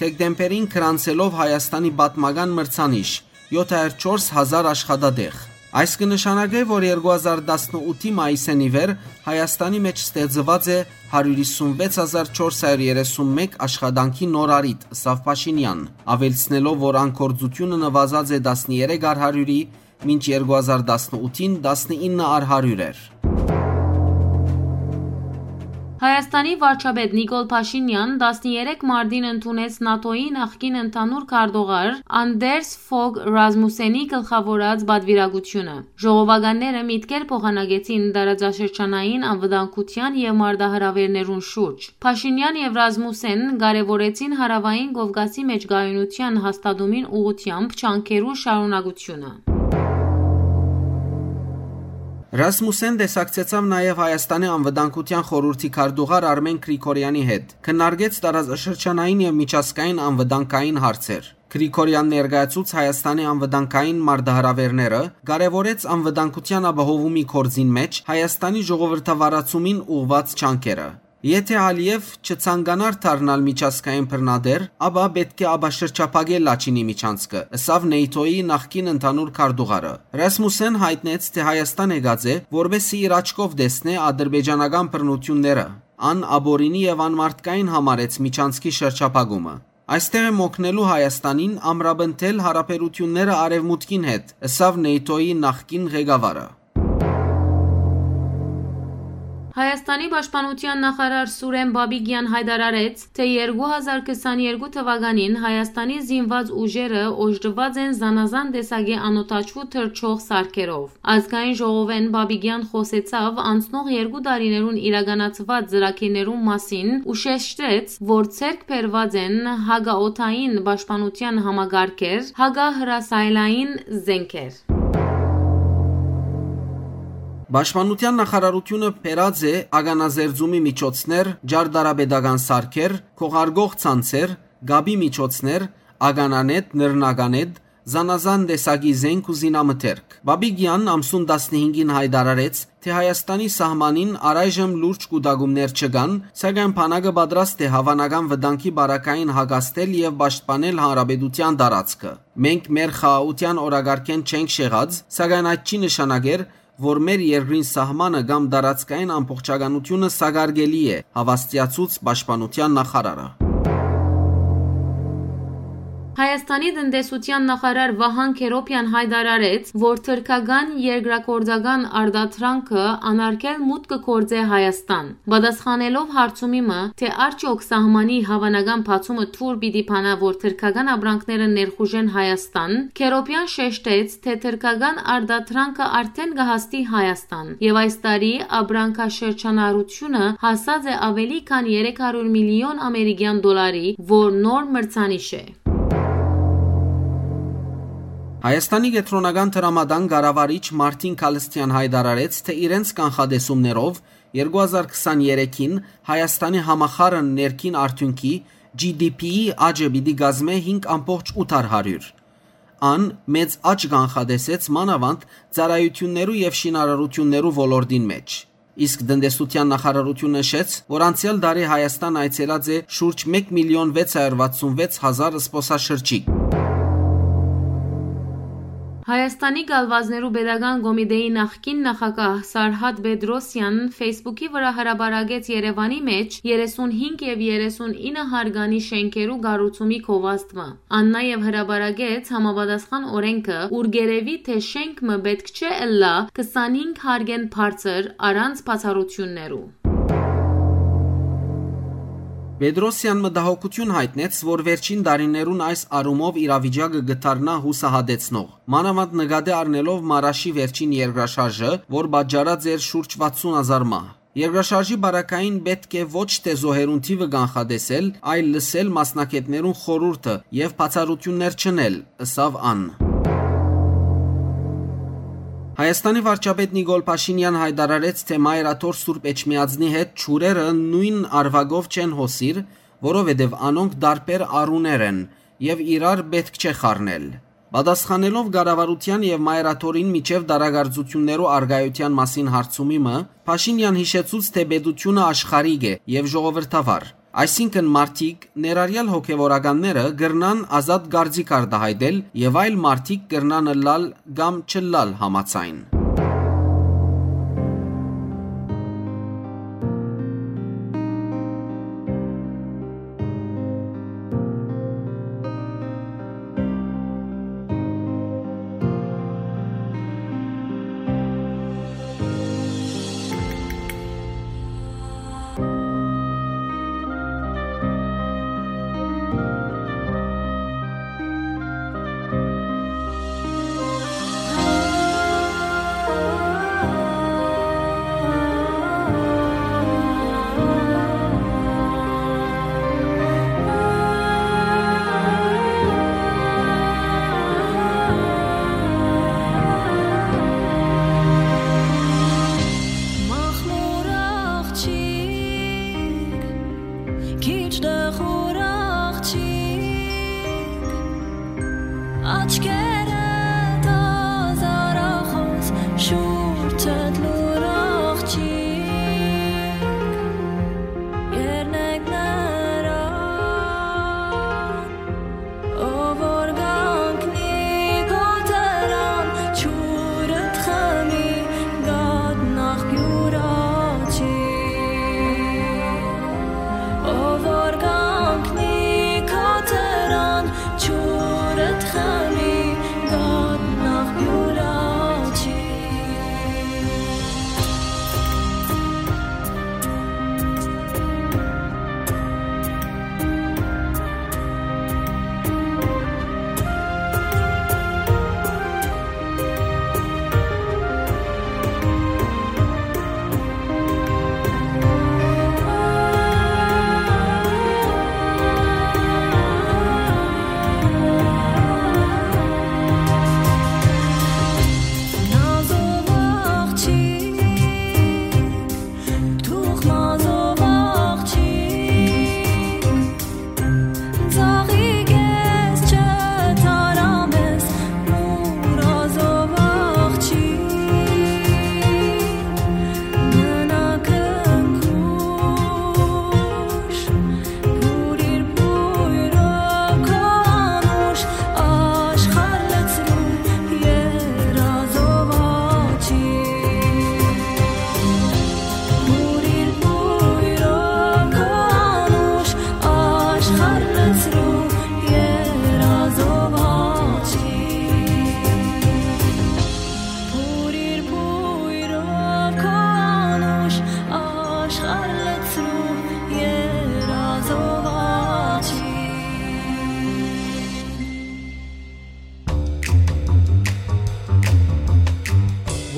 դեկտեմբերին գրանցելով Հայաստանի պատմական մրցանիշ՝ յոթ հարյուր չորս հազար աշխատատեղ։ Այս կը նշանակէ, որ երկու հազար տասնութի մայիսէն ի վեր Հայաստանի մէջ ստեղծուած է հարիւր հիսունվեց հազար չորս հարիւր երեսունմեկ աշխատանքի նոր առիթ, ըսաւ Փաշինեան, աւելցնելով, որ ան գործութիւնը նուազած է տասներեք առ հարիւրի մինչ երկու հազար տասնութին տասնիննը առ հարիւր էր։ Հայաստանի վարչապետ Նիկոլ Փաշինեան տասներեք մարտին ընդունեց նատօ-ի նախկին ընդհանուր քարտուղար Անդերս Ֆոգ Ռազմուսենի գլխաւորած պատուիրակութիւնը։ Ժողովականները միտքեր փոխանակեցին տարածաշրջանային անվտանգութեան եւ մարտահրաւէրներուն շուրջ։ Փաշինեան եւ Ռազմուսեն կարեւորեցին Հարաւային Կովկասի մէջ կայունութեան հաստատումին ուղղութեամբ ջանքերու շարունակությունը։ Ռասմուսեն տեսակցեցաւ նաեւ Հայաստանի Անվտանգութեան խորհուրդի քարտուղար Արմեն Գրիգորեանի հետ, քննարկեց տարածաշրջանային եւ միջազգային անվտանգային հարցեր։ Գրիգորեան ներկայացուց Հայաստանի անվտանգային մարտահրաւէրները, կարեւորեց անվտանգութեան ապահովումի գործին մէջ Հայաստանի ժողովրդավարացումին ուղղուած ջանքերը։ Եթէ Ալիեւ չցանկանար դառնալ միջազգային բռնատէր, ապա պէտք է ապաշրջափակել Լաչինի միջանցքը, ըսաւ նեյթոյի նախկին ընդհանուր քարտուղարը։ Ռասմուսեն յայտնեց, թէ Հայաստան եկած է, որպեսզի իր աչքով տեսնէ ադրբեջանական բռնութիւնները։ Ան ապօրինի եւ անմարդկային համարեց միջանցքի շրջափակումը։ Այստեղ եմ օգնելու Հայաստանին ամրապնդել յարաբերութիւնները Արեւմուտքին հետ, ըսաւ նեյթոյի նախկին ղեկավարը։ Հայաստանի պաշտպանութեան նախարար Սուրեն Բաբիկեան յայտարարեց, թէ երկու հազար քսաներկու թվականին Հայաստանի զինուած ուժերը օժտուած են զանազան տեսակի անօդաչու թռչող սարքերով։ Ազգային ժողովէն Բաբիկեան խօսեցաւ անցնող երկու տարիներուն իրականացուած ծրագիրներուն մասին ու շեշտեց, որ ձեռք բերուած են հակաօդային պաշտպանութեան համակարգեր, հակահրասայլային զէնքեր։ Պաշտպանութեան նախարարութիւնը բերած է ականազերծումի միջոցներ, ճարտարապետական սարքեր, քողարկող ցանցեր, կապի միջոցներ, ականանետ, նռնականետ, զանազան տեսակի զենք ու զինամթերք։ Բաբիկեան ամսուն տասնհինգին յայտարարեց, թէ Հայաստանի սահմանին առայժմ լուրջ կուտակումներ չկան, սակայն բանակը պատրաստ է հաւանական վտանգի պարագային հակազդել եւ պաշտպանել հանրապետութեան տարածքը։ Մենք մեր խաղաղութեան օրակարգէն չենք շեղած, սակայն այդ չի նշանակեր, որ մեր երկրին սահմանը կամ տարածքային ամբողջականութիւնը սակարկելի է, հաւաստիացուց պաշտպանութեան նախարարը։ Հայաստանի տնտեսութեան նախարար Վահան Քերոփեան յայտարարեց, որ թրքական երկրագործական արտադրանքը անարգել մուտք կը գործէ Հայաստան։ Պատասխանելով հարցումի մը, թէ արդյոք սահմանի հաւանական բացումը թուր պիտի բանայ, որ թրքական ապրանքները ներխուժեն Հայաստան, Քերոփեան շեշտեց, թէ թրքական արտադրանքը արդէն կը հասնի Հայաստան, եւ այս տարի ապրանքաշրջանառութիւնը հասած է աւելի քան երեք հարիւր միլիոն ամերիկեան դոլարի, որ նոր մրցանիշ է։ Հայաստանի կեդրոնական դրամատան կառավարիչ Մարտին Քալսթեան յայտարարեց, թէ իրենց կանխատեսումներով երկու հազար քսաներեքին Հայաստանի համախառն ներքին արդիւնքի՝ G D P-ի աճը պիտի կազմէ հինգ ամբողջ ութ հարիւր։ Ան մեծ աճ կանխատեսեց մանաւանդ ծառայութիւններու եւ շինարարութիւններու ոլորտին մէջ։ Իսկ տնտեսութեան նախարարութիւնը նշեց, որ անցեալ տարի Հայաստան այցելած է շուրջ մէկ միլիոն վեց հարիւր վաթսուն վեց հազար զբօսաշրջիկ։ Հայաստանի գալուածներու պետական կոմիտեի նախկին նախագահ Սարհատ Պետրոսեան Facebook-ի վրա հրապարակեց Երեւանի մէջ երեսունհինգ եւ երեսունինը հարկանի շէնքերու կառուցումի գովազդը։ Ան նաեւ հրապարակեց համապատասխան օրէնքը, ուր կ'երեւի, թէ շենք մը պէտք չէ ըլլայ քսանհինգ հարկէն բարձր առանց բացառութիւններու։ Պետրոսեան մտահոգութիւն յայտնեց, որ վերջին տարիներուն այս առումով իրավիճակը կը դառնայ յուսահատեցնող, մանաւանդ նկատի առնելով Մարաշի վերջին երկրաշարժը, որ պատճառած էր շուրջ վաթսուն հազար մահ։ Երկրաշարժի պարագային պէտք է ոչ թէ զոհերուն թիւը կանխատեսել, այլ լսել մասնագէտներուն խորհուրդը եւ բացառութիւններ չընել, ըսաւ ան։ Հայաստանի վարչապետ Նիկոլ Փաշինեան յայտարարեց, թէ Մայր Աթոռ Սուրբ Էջմիածնի հետ ջուրերը նոյն արուակով չեն հոսիր, որովհետեւ անոնք տարբեր առուներ են եւ իրար պէտք չէ խառնել։ Պատասխանելով կառավարութեան եւ Մայր Աթոռին միջեւ տարակարծութիւններու առկայութեան մասին հարցումի մը, Փաշինեան յիշեցուց, թէ պետութիւնը աշխարհիկ է եւ ժողովրդավար, այսինքն մարդիկ, ներառյալ հոգեւորականները, կրնան ազատ կարծիք արտայայտել եւ այլ մարդիկ կրնան ըլլալ կամ չըլլալ համաձայն։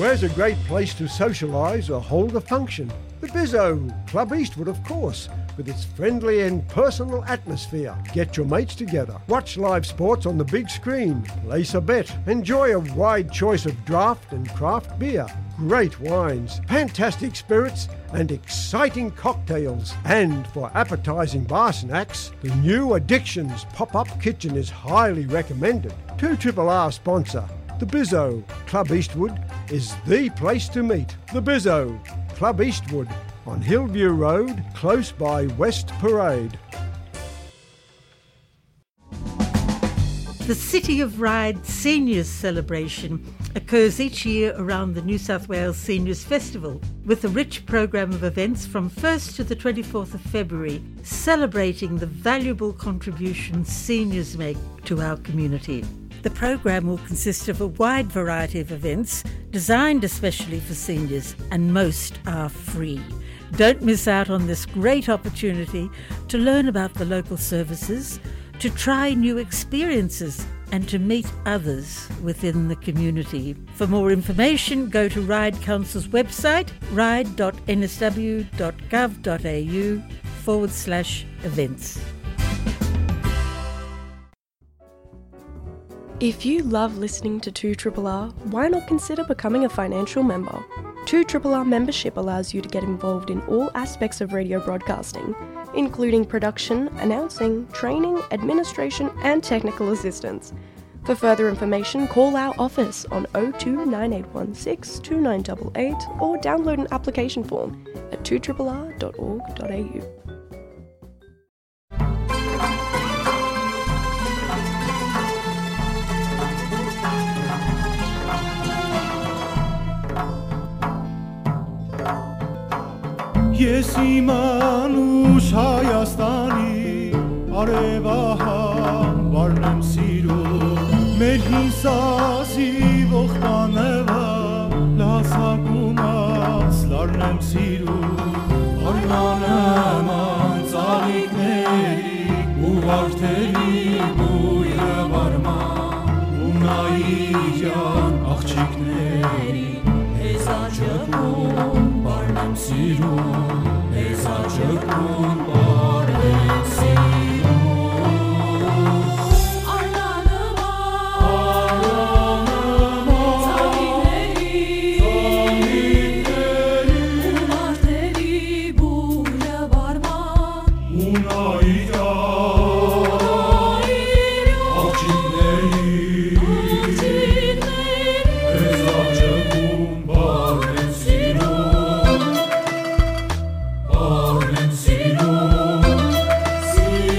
Where's a great place to socialise or hold a function? The Bizzo, Club Eastwood, of course, with its friendly and personal atmosphere. Get your mates together, watch live sports on the big screen, place a bet, enjoy a wide choice of draft and craft beer, great wines, fantastic spirits, and exciting cocktails. And for appetising bar snacks, the new Addictions pop-up kitchen is highly recommended. Two triple R sponsor, the Bizzo, Club Eastwood, is the place to meet. The Bizzo, Club Eastwood, on Hillview Road, close by West Parade. The City of Ryde Seniors Celebration occurs each year around the New South Wales Seniors Festival, with a rich programme of events from first to the twenty-fourth of February, celebrating the valuable contributions seniors make to our community. The programme will consist of a wide variety of events designed especially for seniors, and most are free. Don't miss out on this great opportunity to learn about the local services, to try new experiences, and to meet others within the community. For more information, go to Ryde Council's website, ryde dot n s w dot gov dot a u forward slash events. If you love listening to two triple R, why not consider becoming a financial member? two triple R membership allows you to get involved in all aspects of radio broadcasting, including production, announcing, training, administration, and technical assistance. For further information, call our office on oh two nine eight one six two nine eight eight or download an application form at two triple R dot org dot a u. Ես իմ անուշ Հայաստանի արևահան վարն եմ սիրում, մեր հին սազի ողբանևա լասակումած լարն եմ սիրում, արնանման ծաղիկների ու վարդերի բույրը վարման ու նայիրյան աղջիկների, ես աճկում պարն եմ սիրում, ես աճկում պարն եմ սիրում։ Արնանման, արնանման ծաղիկների, ծաղիկների ու վարդերի բույրը վարման ու նայիրյան աղջիկների, աղջիկների, ես աճկում պարն եմ սիրում, պարն եմ սիրում, սիրում։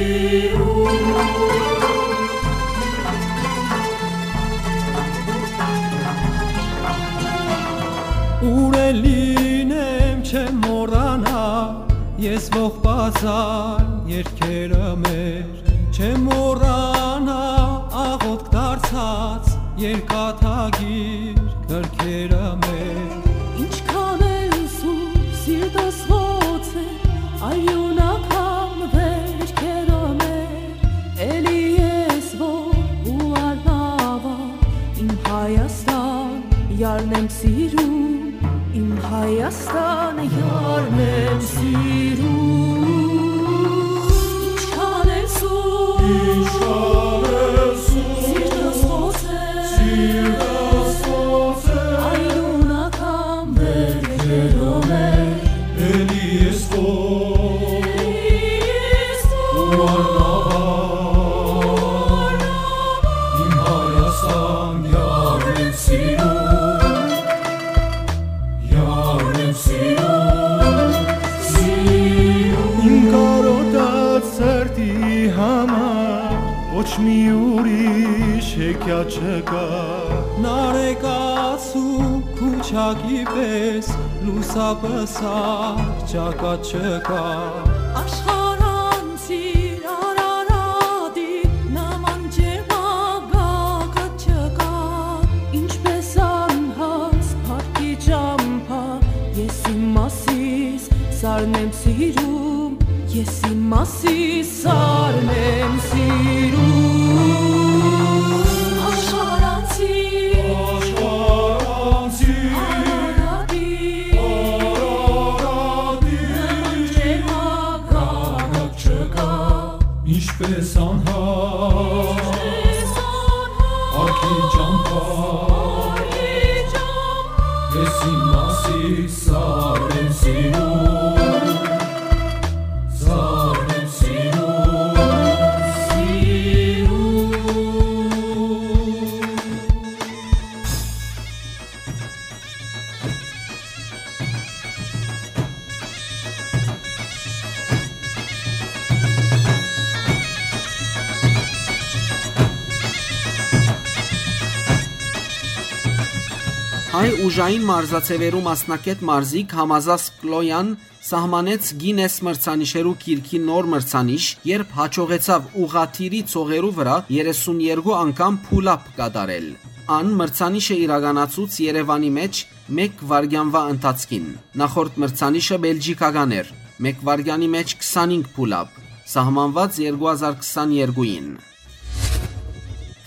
Ուր էլ լինեմ, չեմ մոռանա, ես ողբազան երկերը մեր, չեմ մոռանա աղոթք դարձած երկաթագիր գրքերը մեր։ Ինչքան էլ սուր սիրտս ոնց է, արիունական վերքերը մեր, էլի ես որ ու արնավա, իմ Հայաստան, յարն եմ սիրում, իմ Հայաստան, յարն եմ սիրում։ Ինչքան էլ սուր, ինչքան էլ սուր, սիրտս ոնց է, սիրտս ոնց է, արիունական վերքերով է, էլի ես քո, ու արնավան, իմ Հայաստան, յարն եմ սիրում, յարն եմ սիրում, սիրում։ Իմ կարոտած սրտի համար ոչ մի ուրիշ հեքիաթ չկա, նարեկացու քուչակի պես լուսապսակ ճակատ չկա։ Աշխարհանցիր Արարատի նման ճերմագագաթ չկա, ինչպես անհաս փառքի ճամփա, ես իմ մասիս սարն եմ սիրում, ես իմ մասիս սարն եմ սիրում։ Աշխարհանցիր, աշխարհանցիր Ես իմ մասից սաղ եմ սիրում, սաղ եմ սիրում, սիրում։ Հայ ուժային մարզաձեւերու մասնակէտ մարզիկ Համազաս Կլոյան սահմանեց Գինես մրցանիշերու գիրքի նոր մրցանիշ, երբ յաջողեցաւ ուղղաթիռի ծողերու վրայ երեսուն երկու անգամ pull-up կատարել։ Ան մրցանիշը իրականացուց Երեւանի մէջ մէկ վայրկեանուա ընթացքին։ Նախորդ մրցանիշը բելգիքական էր, մէկ վայրկեանի մէջ քսանհինգ pull-up, սահմանուած երկու հազար քսաներկուին։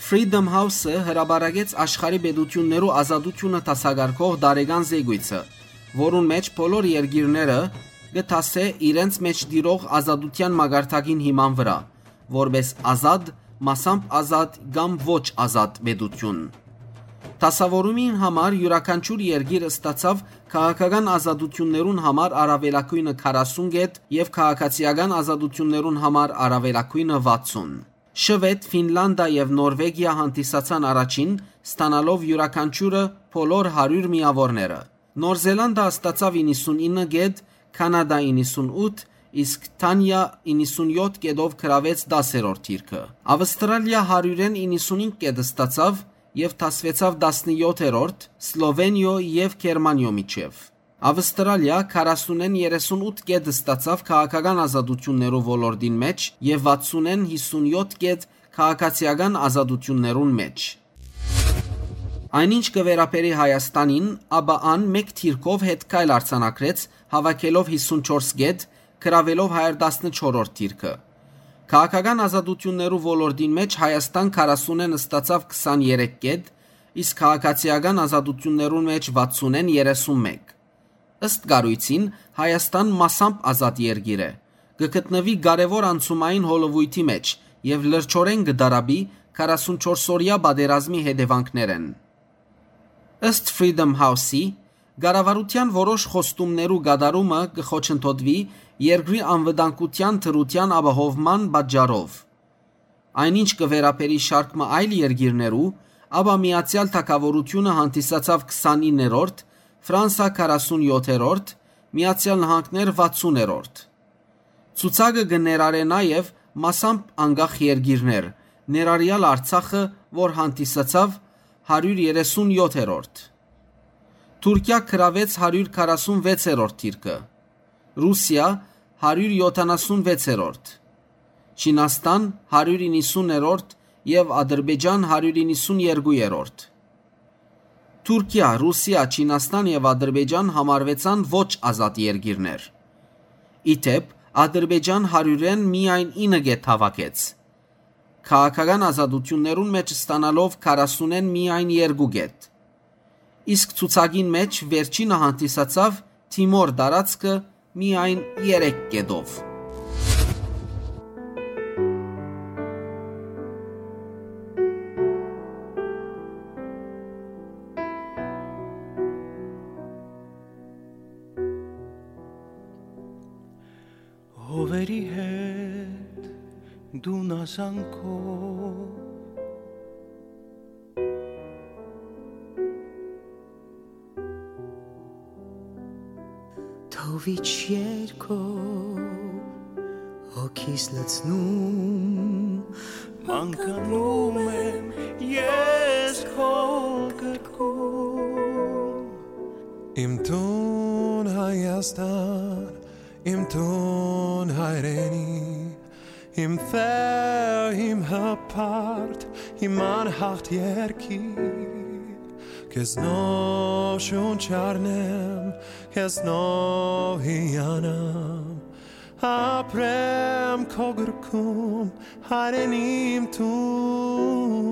Freedom House-ը հրապարակեց աշխարհի պետութիւններու ազատութիւնը դասակարգող տարեկան զեկոյցը, որուն մէջ բոլոր երկիրները կը դասէ իրենց մէջ տիրող ազատութեան մակարդակին հիման վրայ, որպէս ազատ, մասամբ ազատ կամ ոչ ազատ պետութիւն։ Դասաւորումին համար իւրաքանչիւր երկիր ստացաւ քաղաքական ազատութիւններուն համար առաւելագոյնը քառասուն կետ եւ քաղաքացիական ազատութիւններուն համար առաւելագոյնը վաթսուն։ Շուետ, Ֆինլանտա եւ Նորվեգիա հանդիսացան առաջին, ստանալով իւրաքանչիւրը բոլոր հարիւր միաւորները։ Նոր Զելանտա ստացաւ իննսունինը կետ, Քանադա իննսունութ, իսկ Դանիա իննսունյոթ կետով գրաւեց տասերորդ դիրքը։ Ավստրալիա հարիւրէն իննսունհինգ կետ ստացաւ եւ դասուեցաւ տասնյոթերորդ, Սլովենիոյ եւ Գերմանիոյ միջեւ։ Ավստրալիա քառասունէն երեսունութ կետ ստացաւ քաղաքական ազատութիւններու ոլորտին մէջ եւ վաթսունէն յիսունյոթ կետ քաղաքացիական ազատութիւններուն մէջ։ Այնինչ կը վերաբերի Հայաստանին, ապա ան մէկ դիրքով հետքայլ արձանագրեց, հաւաքելով յիսունչորս կետ, գրաւելով հարիւր տասնչորսերորդ դիրքը։ Քաղաքական ազատութիւններու ոլորտին մէջ Հայաստան քառասունէն ստացաւ քսաներեք կետ, իսկ քաղաքացիական ազատութիւններուն մէջ վաթսունէն երեսունմէկ։ Ըստ կառոյցին, Հայաստան մասամբ ազատ երկիր է, կը գտնուի կարեւոր անցումային հոլովոյթի մէջ եւ լրջորեն կը տառապի քառասունչորսօրեայ պատերազմի հետեւանքներէն։ Ըստ Freedom House-ի, կառավարութեան որոշ խոստումներու կատարումը կը խոչընդոտուի երկրի անվտանգութեան դրութեան ապահովման պատճառով։ Այնինչ կը վերաբերի շարք մը այլ երկիրներու, ապա Միացեալ Թագաւորութիւնը հանդիսացաւ քսանիններորդ, Ֆրանսա քառասունյոթերորդ, Միացեալ Նահանգներ վաթսուներորդ։ Ցուցակը կը ներառէ նաեւ մասամբ անկախ երկիրներ, ներառեալ Արցախը, որ հանդիսացաւ հարիւր երեսունյոթերորդ։ Թուրքիա գրաւեց հարիւր քառասունվեցերորդ դիրքը, Ռուսիա՝ հարիւր յոթանասունվեցերորդ, Չինաստան՝ հարիւր իննսուներորդ եւ Ադրբեջան՝ հարիւր իննսուներկուերորդ։ Թուրքիա, Ռուսիա, Չինաստան եւ Ադրբեջան համարուեցան ոչ ազատ երկիրներ։ Ի դէպ, Ադրբեջան հարիւրէն միայն ինը կետ հաւաքեց, քաղաքական ազատութիւններուն մէջ ստանալով քառասունէն միայն երկու կետ։ Իսկ ցուցակին մէջ վերջինը հանդիսացաւ Թիմոր տարածքը միայն երեք կետով։ Հովերի հետ դու նազանքով, թովիչ երկով հոգիս լցնում, մանկանում եմ ես քո գրկում։ Իմ տուն Հայաստան, իմ տուն հայրենի, իմ տեղ, իմ հպարտ, իմ անհաղթ երկիր, քեզնով շունչ առնեմ, քեզնով հիանամ, ապրեմ քո գրկում, հայրենիմ տուն։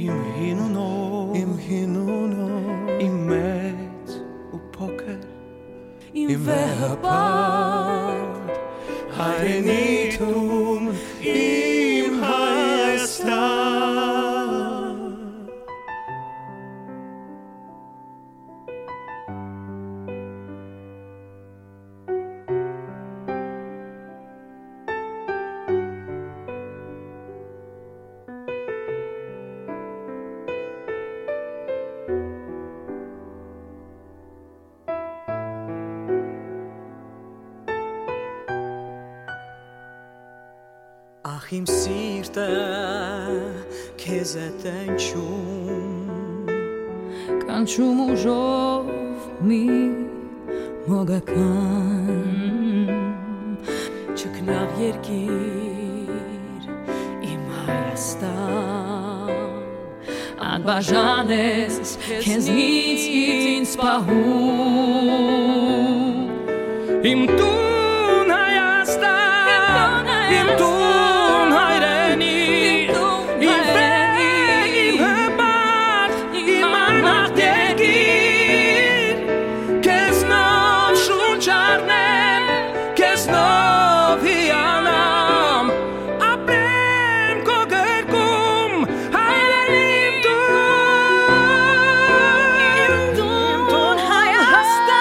Իմ հին ու նոր, իմ հին ու նոր, իմ մեծ ու փոքր, իմ վեհը պարտ, հայրենի տուն, իմ Հայաստան։ Իմ սիրտը քեզ է տենչում, կանչում ուժով մի մոգական, չքնաղ երկիր, իմ Հայաստան, անբաժան ես քեզնից ինձ պահում։ Իմ տուն Հայաստան, իմ տուն հայրենիք, իմ վեր, իմ հպարտ, իմ անհատ երկիր, քեզնով շունչ առնեմ, քեզնով հիանամ, ապրեմ քո կրկում, հայրենիք դու։ Իմ տուն Հայաստան,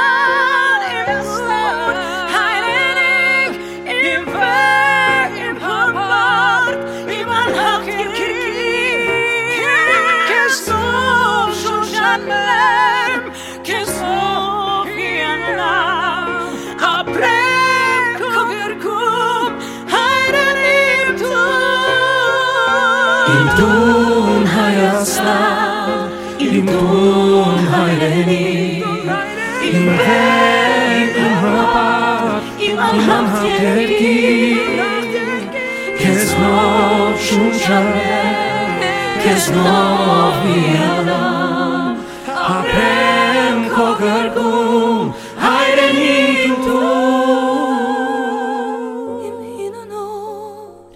իմ սուրբ հայրենիք, իմ վեր, իմ հպարտ, իմ անհատ երկիր, քեզնով շունչ առնեմ, քեզնով հիանամ, ապրեմ քո կրկում, հայրենիք դու։ Իմ տուն Հայաստան, իմ տուն հայրենիք, իմ վեր, իմ հպարտ, իմ անհատ երկիր, քեզնով շունչ առնեմ, քեզնով հիանամ, ապրեմ քո կրկում, հայրենիք դու։ Իմ հին ու նոր,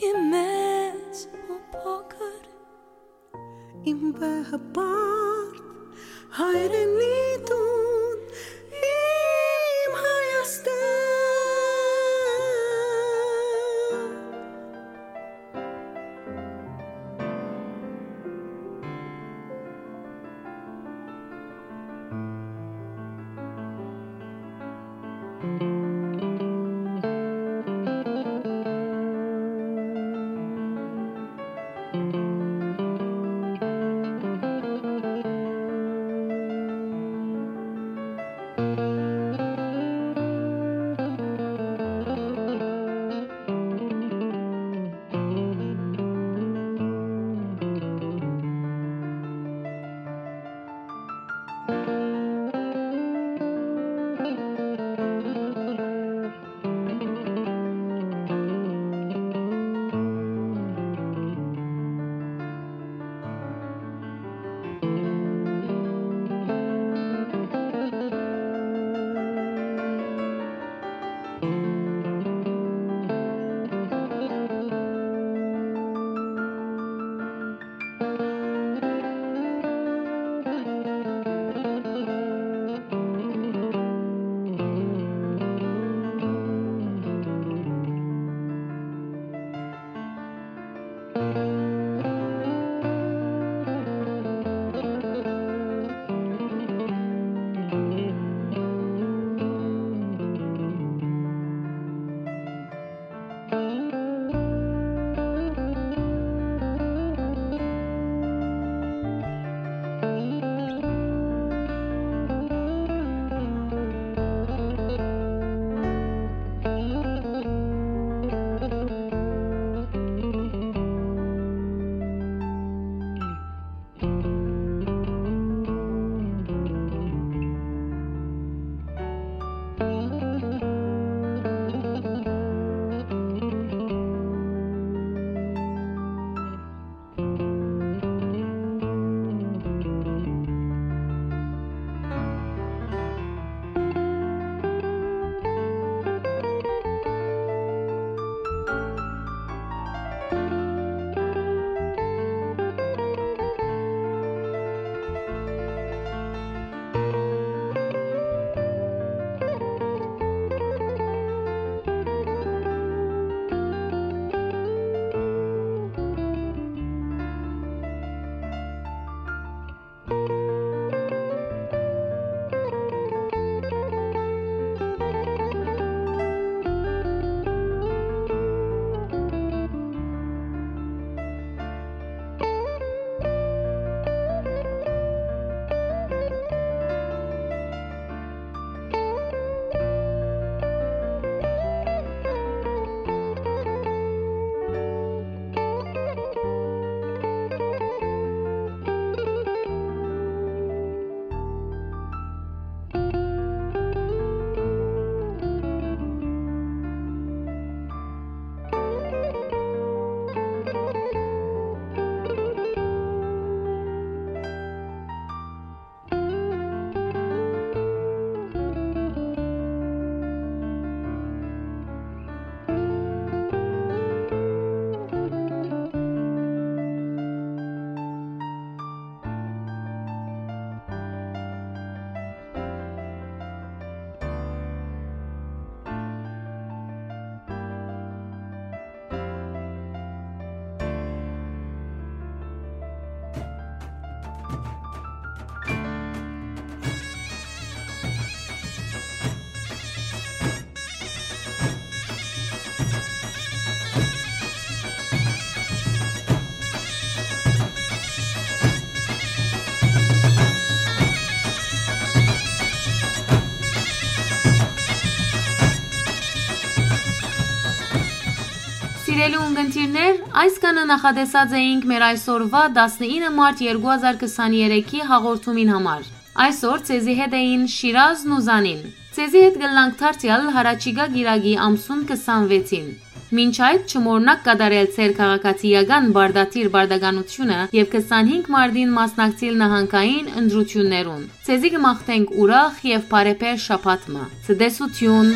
իմ մեծ ու փոքր, իմ վեհ հպարտ հայրենի տուն, իմ Հայաստան։ Սիրելի ունգընտիրներ, այսքանը նախատեսած էինք մեր այսօրուա տասնինը մարտ երկու հազար քսաներեքի հաղորդումին համար։ Այսօր ձեզի հետ էին Շիրազն ու Զանին։ Ձեզի հետ կ'ըլլանք դարձեալ յառաջիկայ կիրակի ամսուն քսանվեցին։ Մինչ այդ, չմոռնաք կատարել ձեր քաղաքացիական պարտադիր պարտականութիւնը եւ քսանհինգ մարտին մասնակցիլ նահանգային ընտրութիւններուն։ Ձեզի կը մաղթենք ուրախ եւ բարեբեր շաբաթ մը։ Ցտեսութիւն։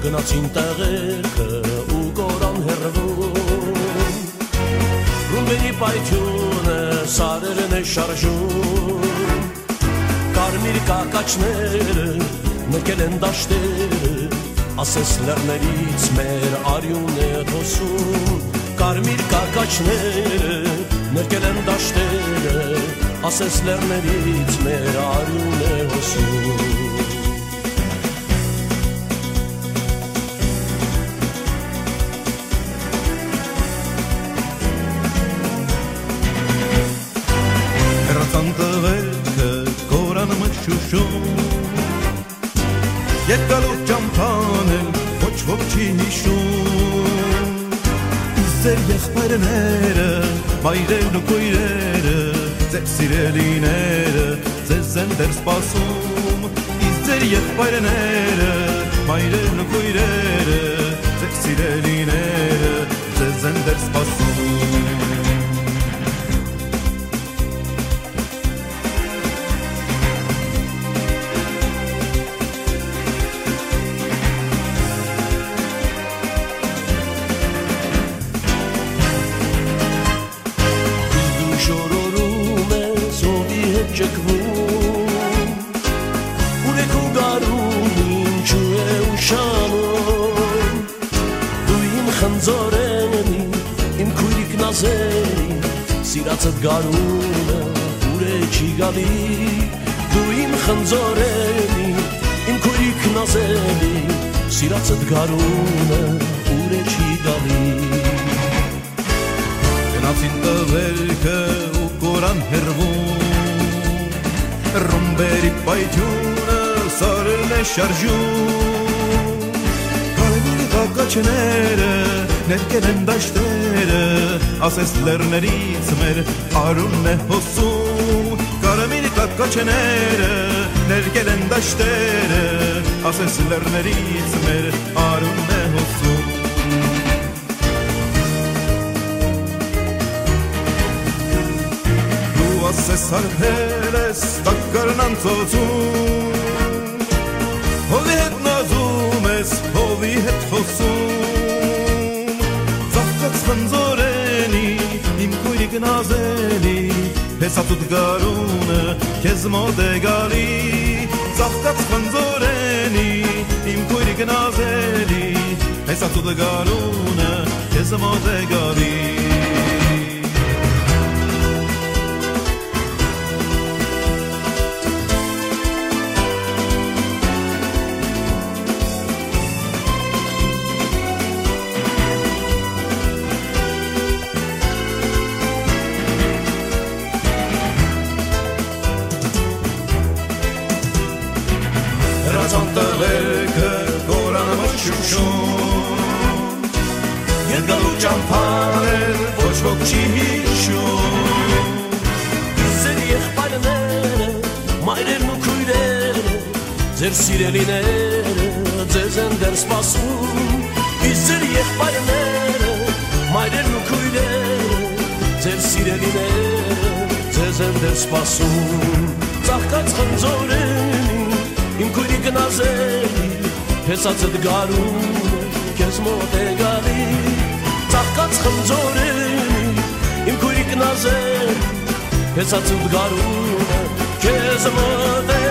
Գնացին տեղերքը ու կորան հեռվում, ռումբերի պայթիւնը սարերն է շարժում, կարմիր կակաչները նկել են դաշտերը, ասես լեռներից մեր արիւն է հոսում, կարմիր կակաչները նկել են դաշտերը, ասես լեռներից մեր արիւն է հոսում։ Հեռացան տղերքը կորան մշուշում, երկալուր ճամփան էլ ոչ ոք չի յիշում։ Իսկ ձեր եղբայրները, մայրերն ու քոյրերը, ձեր սիրելիները ձեզ են դեռ սպասում։ Իսկ ձեր եղբայրները, մայրերն ու քոյրերը, ձեր սիրելիները ձեզ են դեռ սպասում։ Իսկ դու շորորում ես, հովի հետ ճկվում, ուրեք ու գարուն ինչու է ուշանում։ Դու իմ խնձորենի, իմ քոյրիկ նազելի, սիրածդ գարունը ուրե չի գալի։ Դու իմ խնձորենի, իմ քոյրիկ նազելի, սիրածդ գարունը ուրե չի գալի։ Գնացին տղերքը ու կորան հեռվում, ռումբերի պայթիւնը սարերն է շարժում, կարմիր կակաչները ներկել են դաշտերը, ասես լեռներից մեր արունն է հոսում, կարմիր կակաչները ներկել են դաշտերը, ասես լեռներից մեր արունն է հոսում։ Դու ասես արտել ես տակառն անցոցում, հովի հետ նազում ես, հովի հետ խոսում, ծաղկած խնձորենի, իմ քոյրիկ նազելի, հեսացուտ գարունը քեզ մոտ է գալի, ծաղկած խնձորենի, իմ քոյրիկ նազելի, հեսացուտ գարունը քեզ մոտ է գալի։ Ցանտեղեքը կորան մշուշում, երկալու ճամբաներ ոչ ոք չի հիշում։ Իսկ ձեր եղբայրները, մայրերն ու քույրերը, ձեր սիրելիները ձեզ են դեռ սպասում։ Իսկ ձեր եղբայրները, մայրերն ու քույրերը, ձեր սիրելիները ձեզ են դեռ սպասում։ Ծաղկած խնձորենի իմ քոյրիկ Նազերի, փեսացդ գարուն քեզ մոտ է գալի։ Ծաղկած խնձորենի իմ քոյրիկ Նազերի, փեսացդ գարուն քեզ մոտ է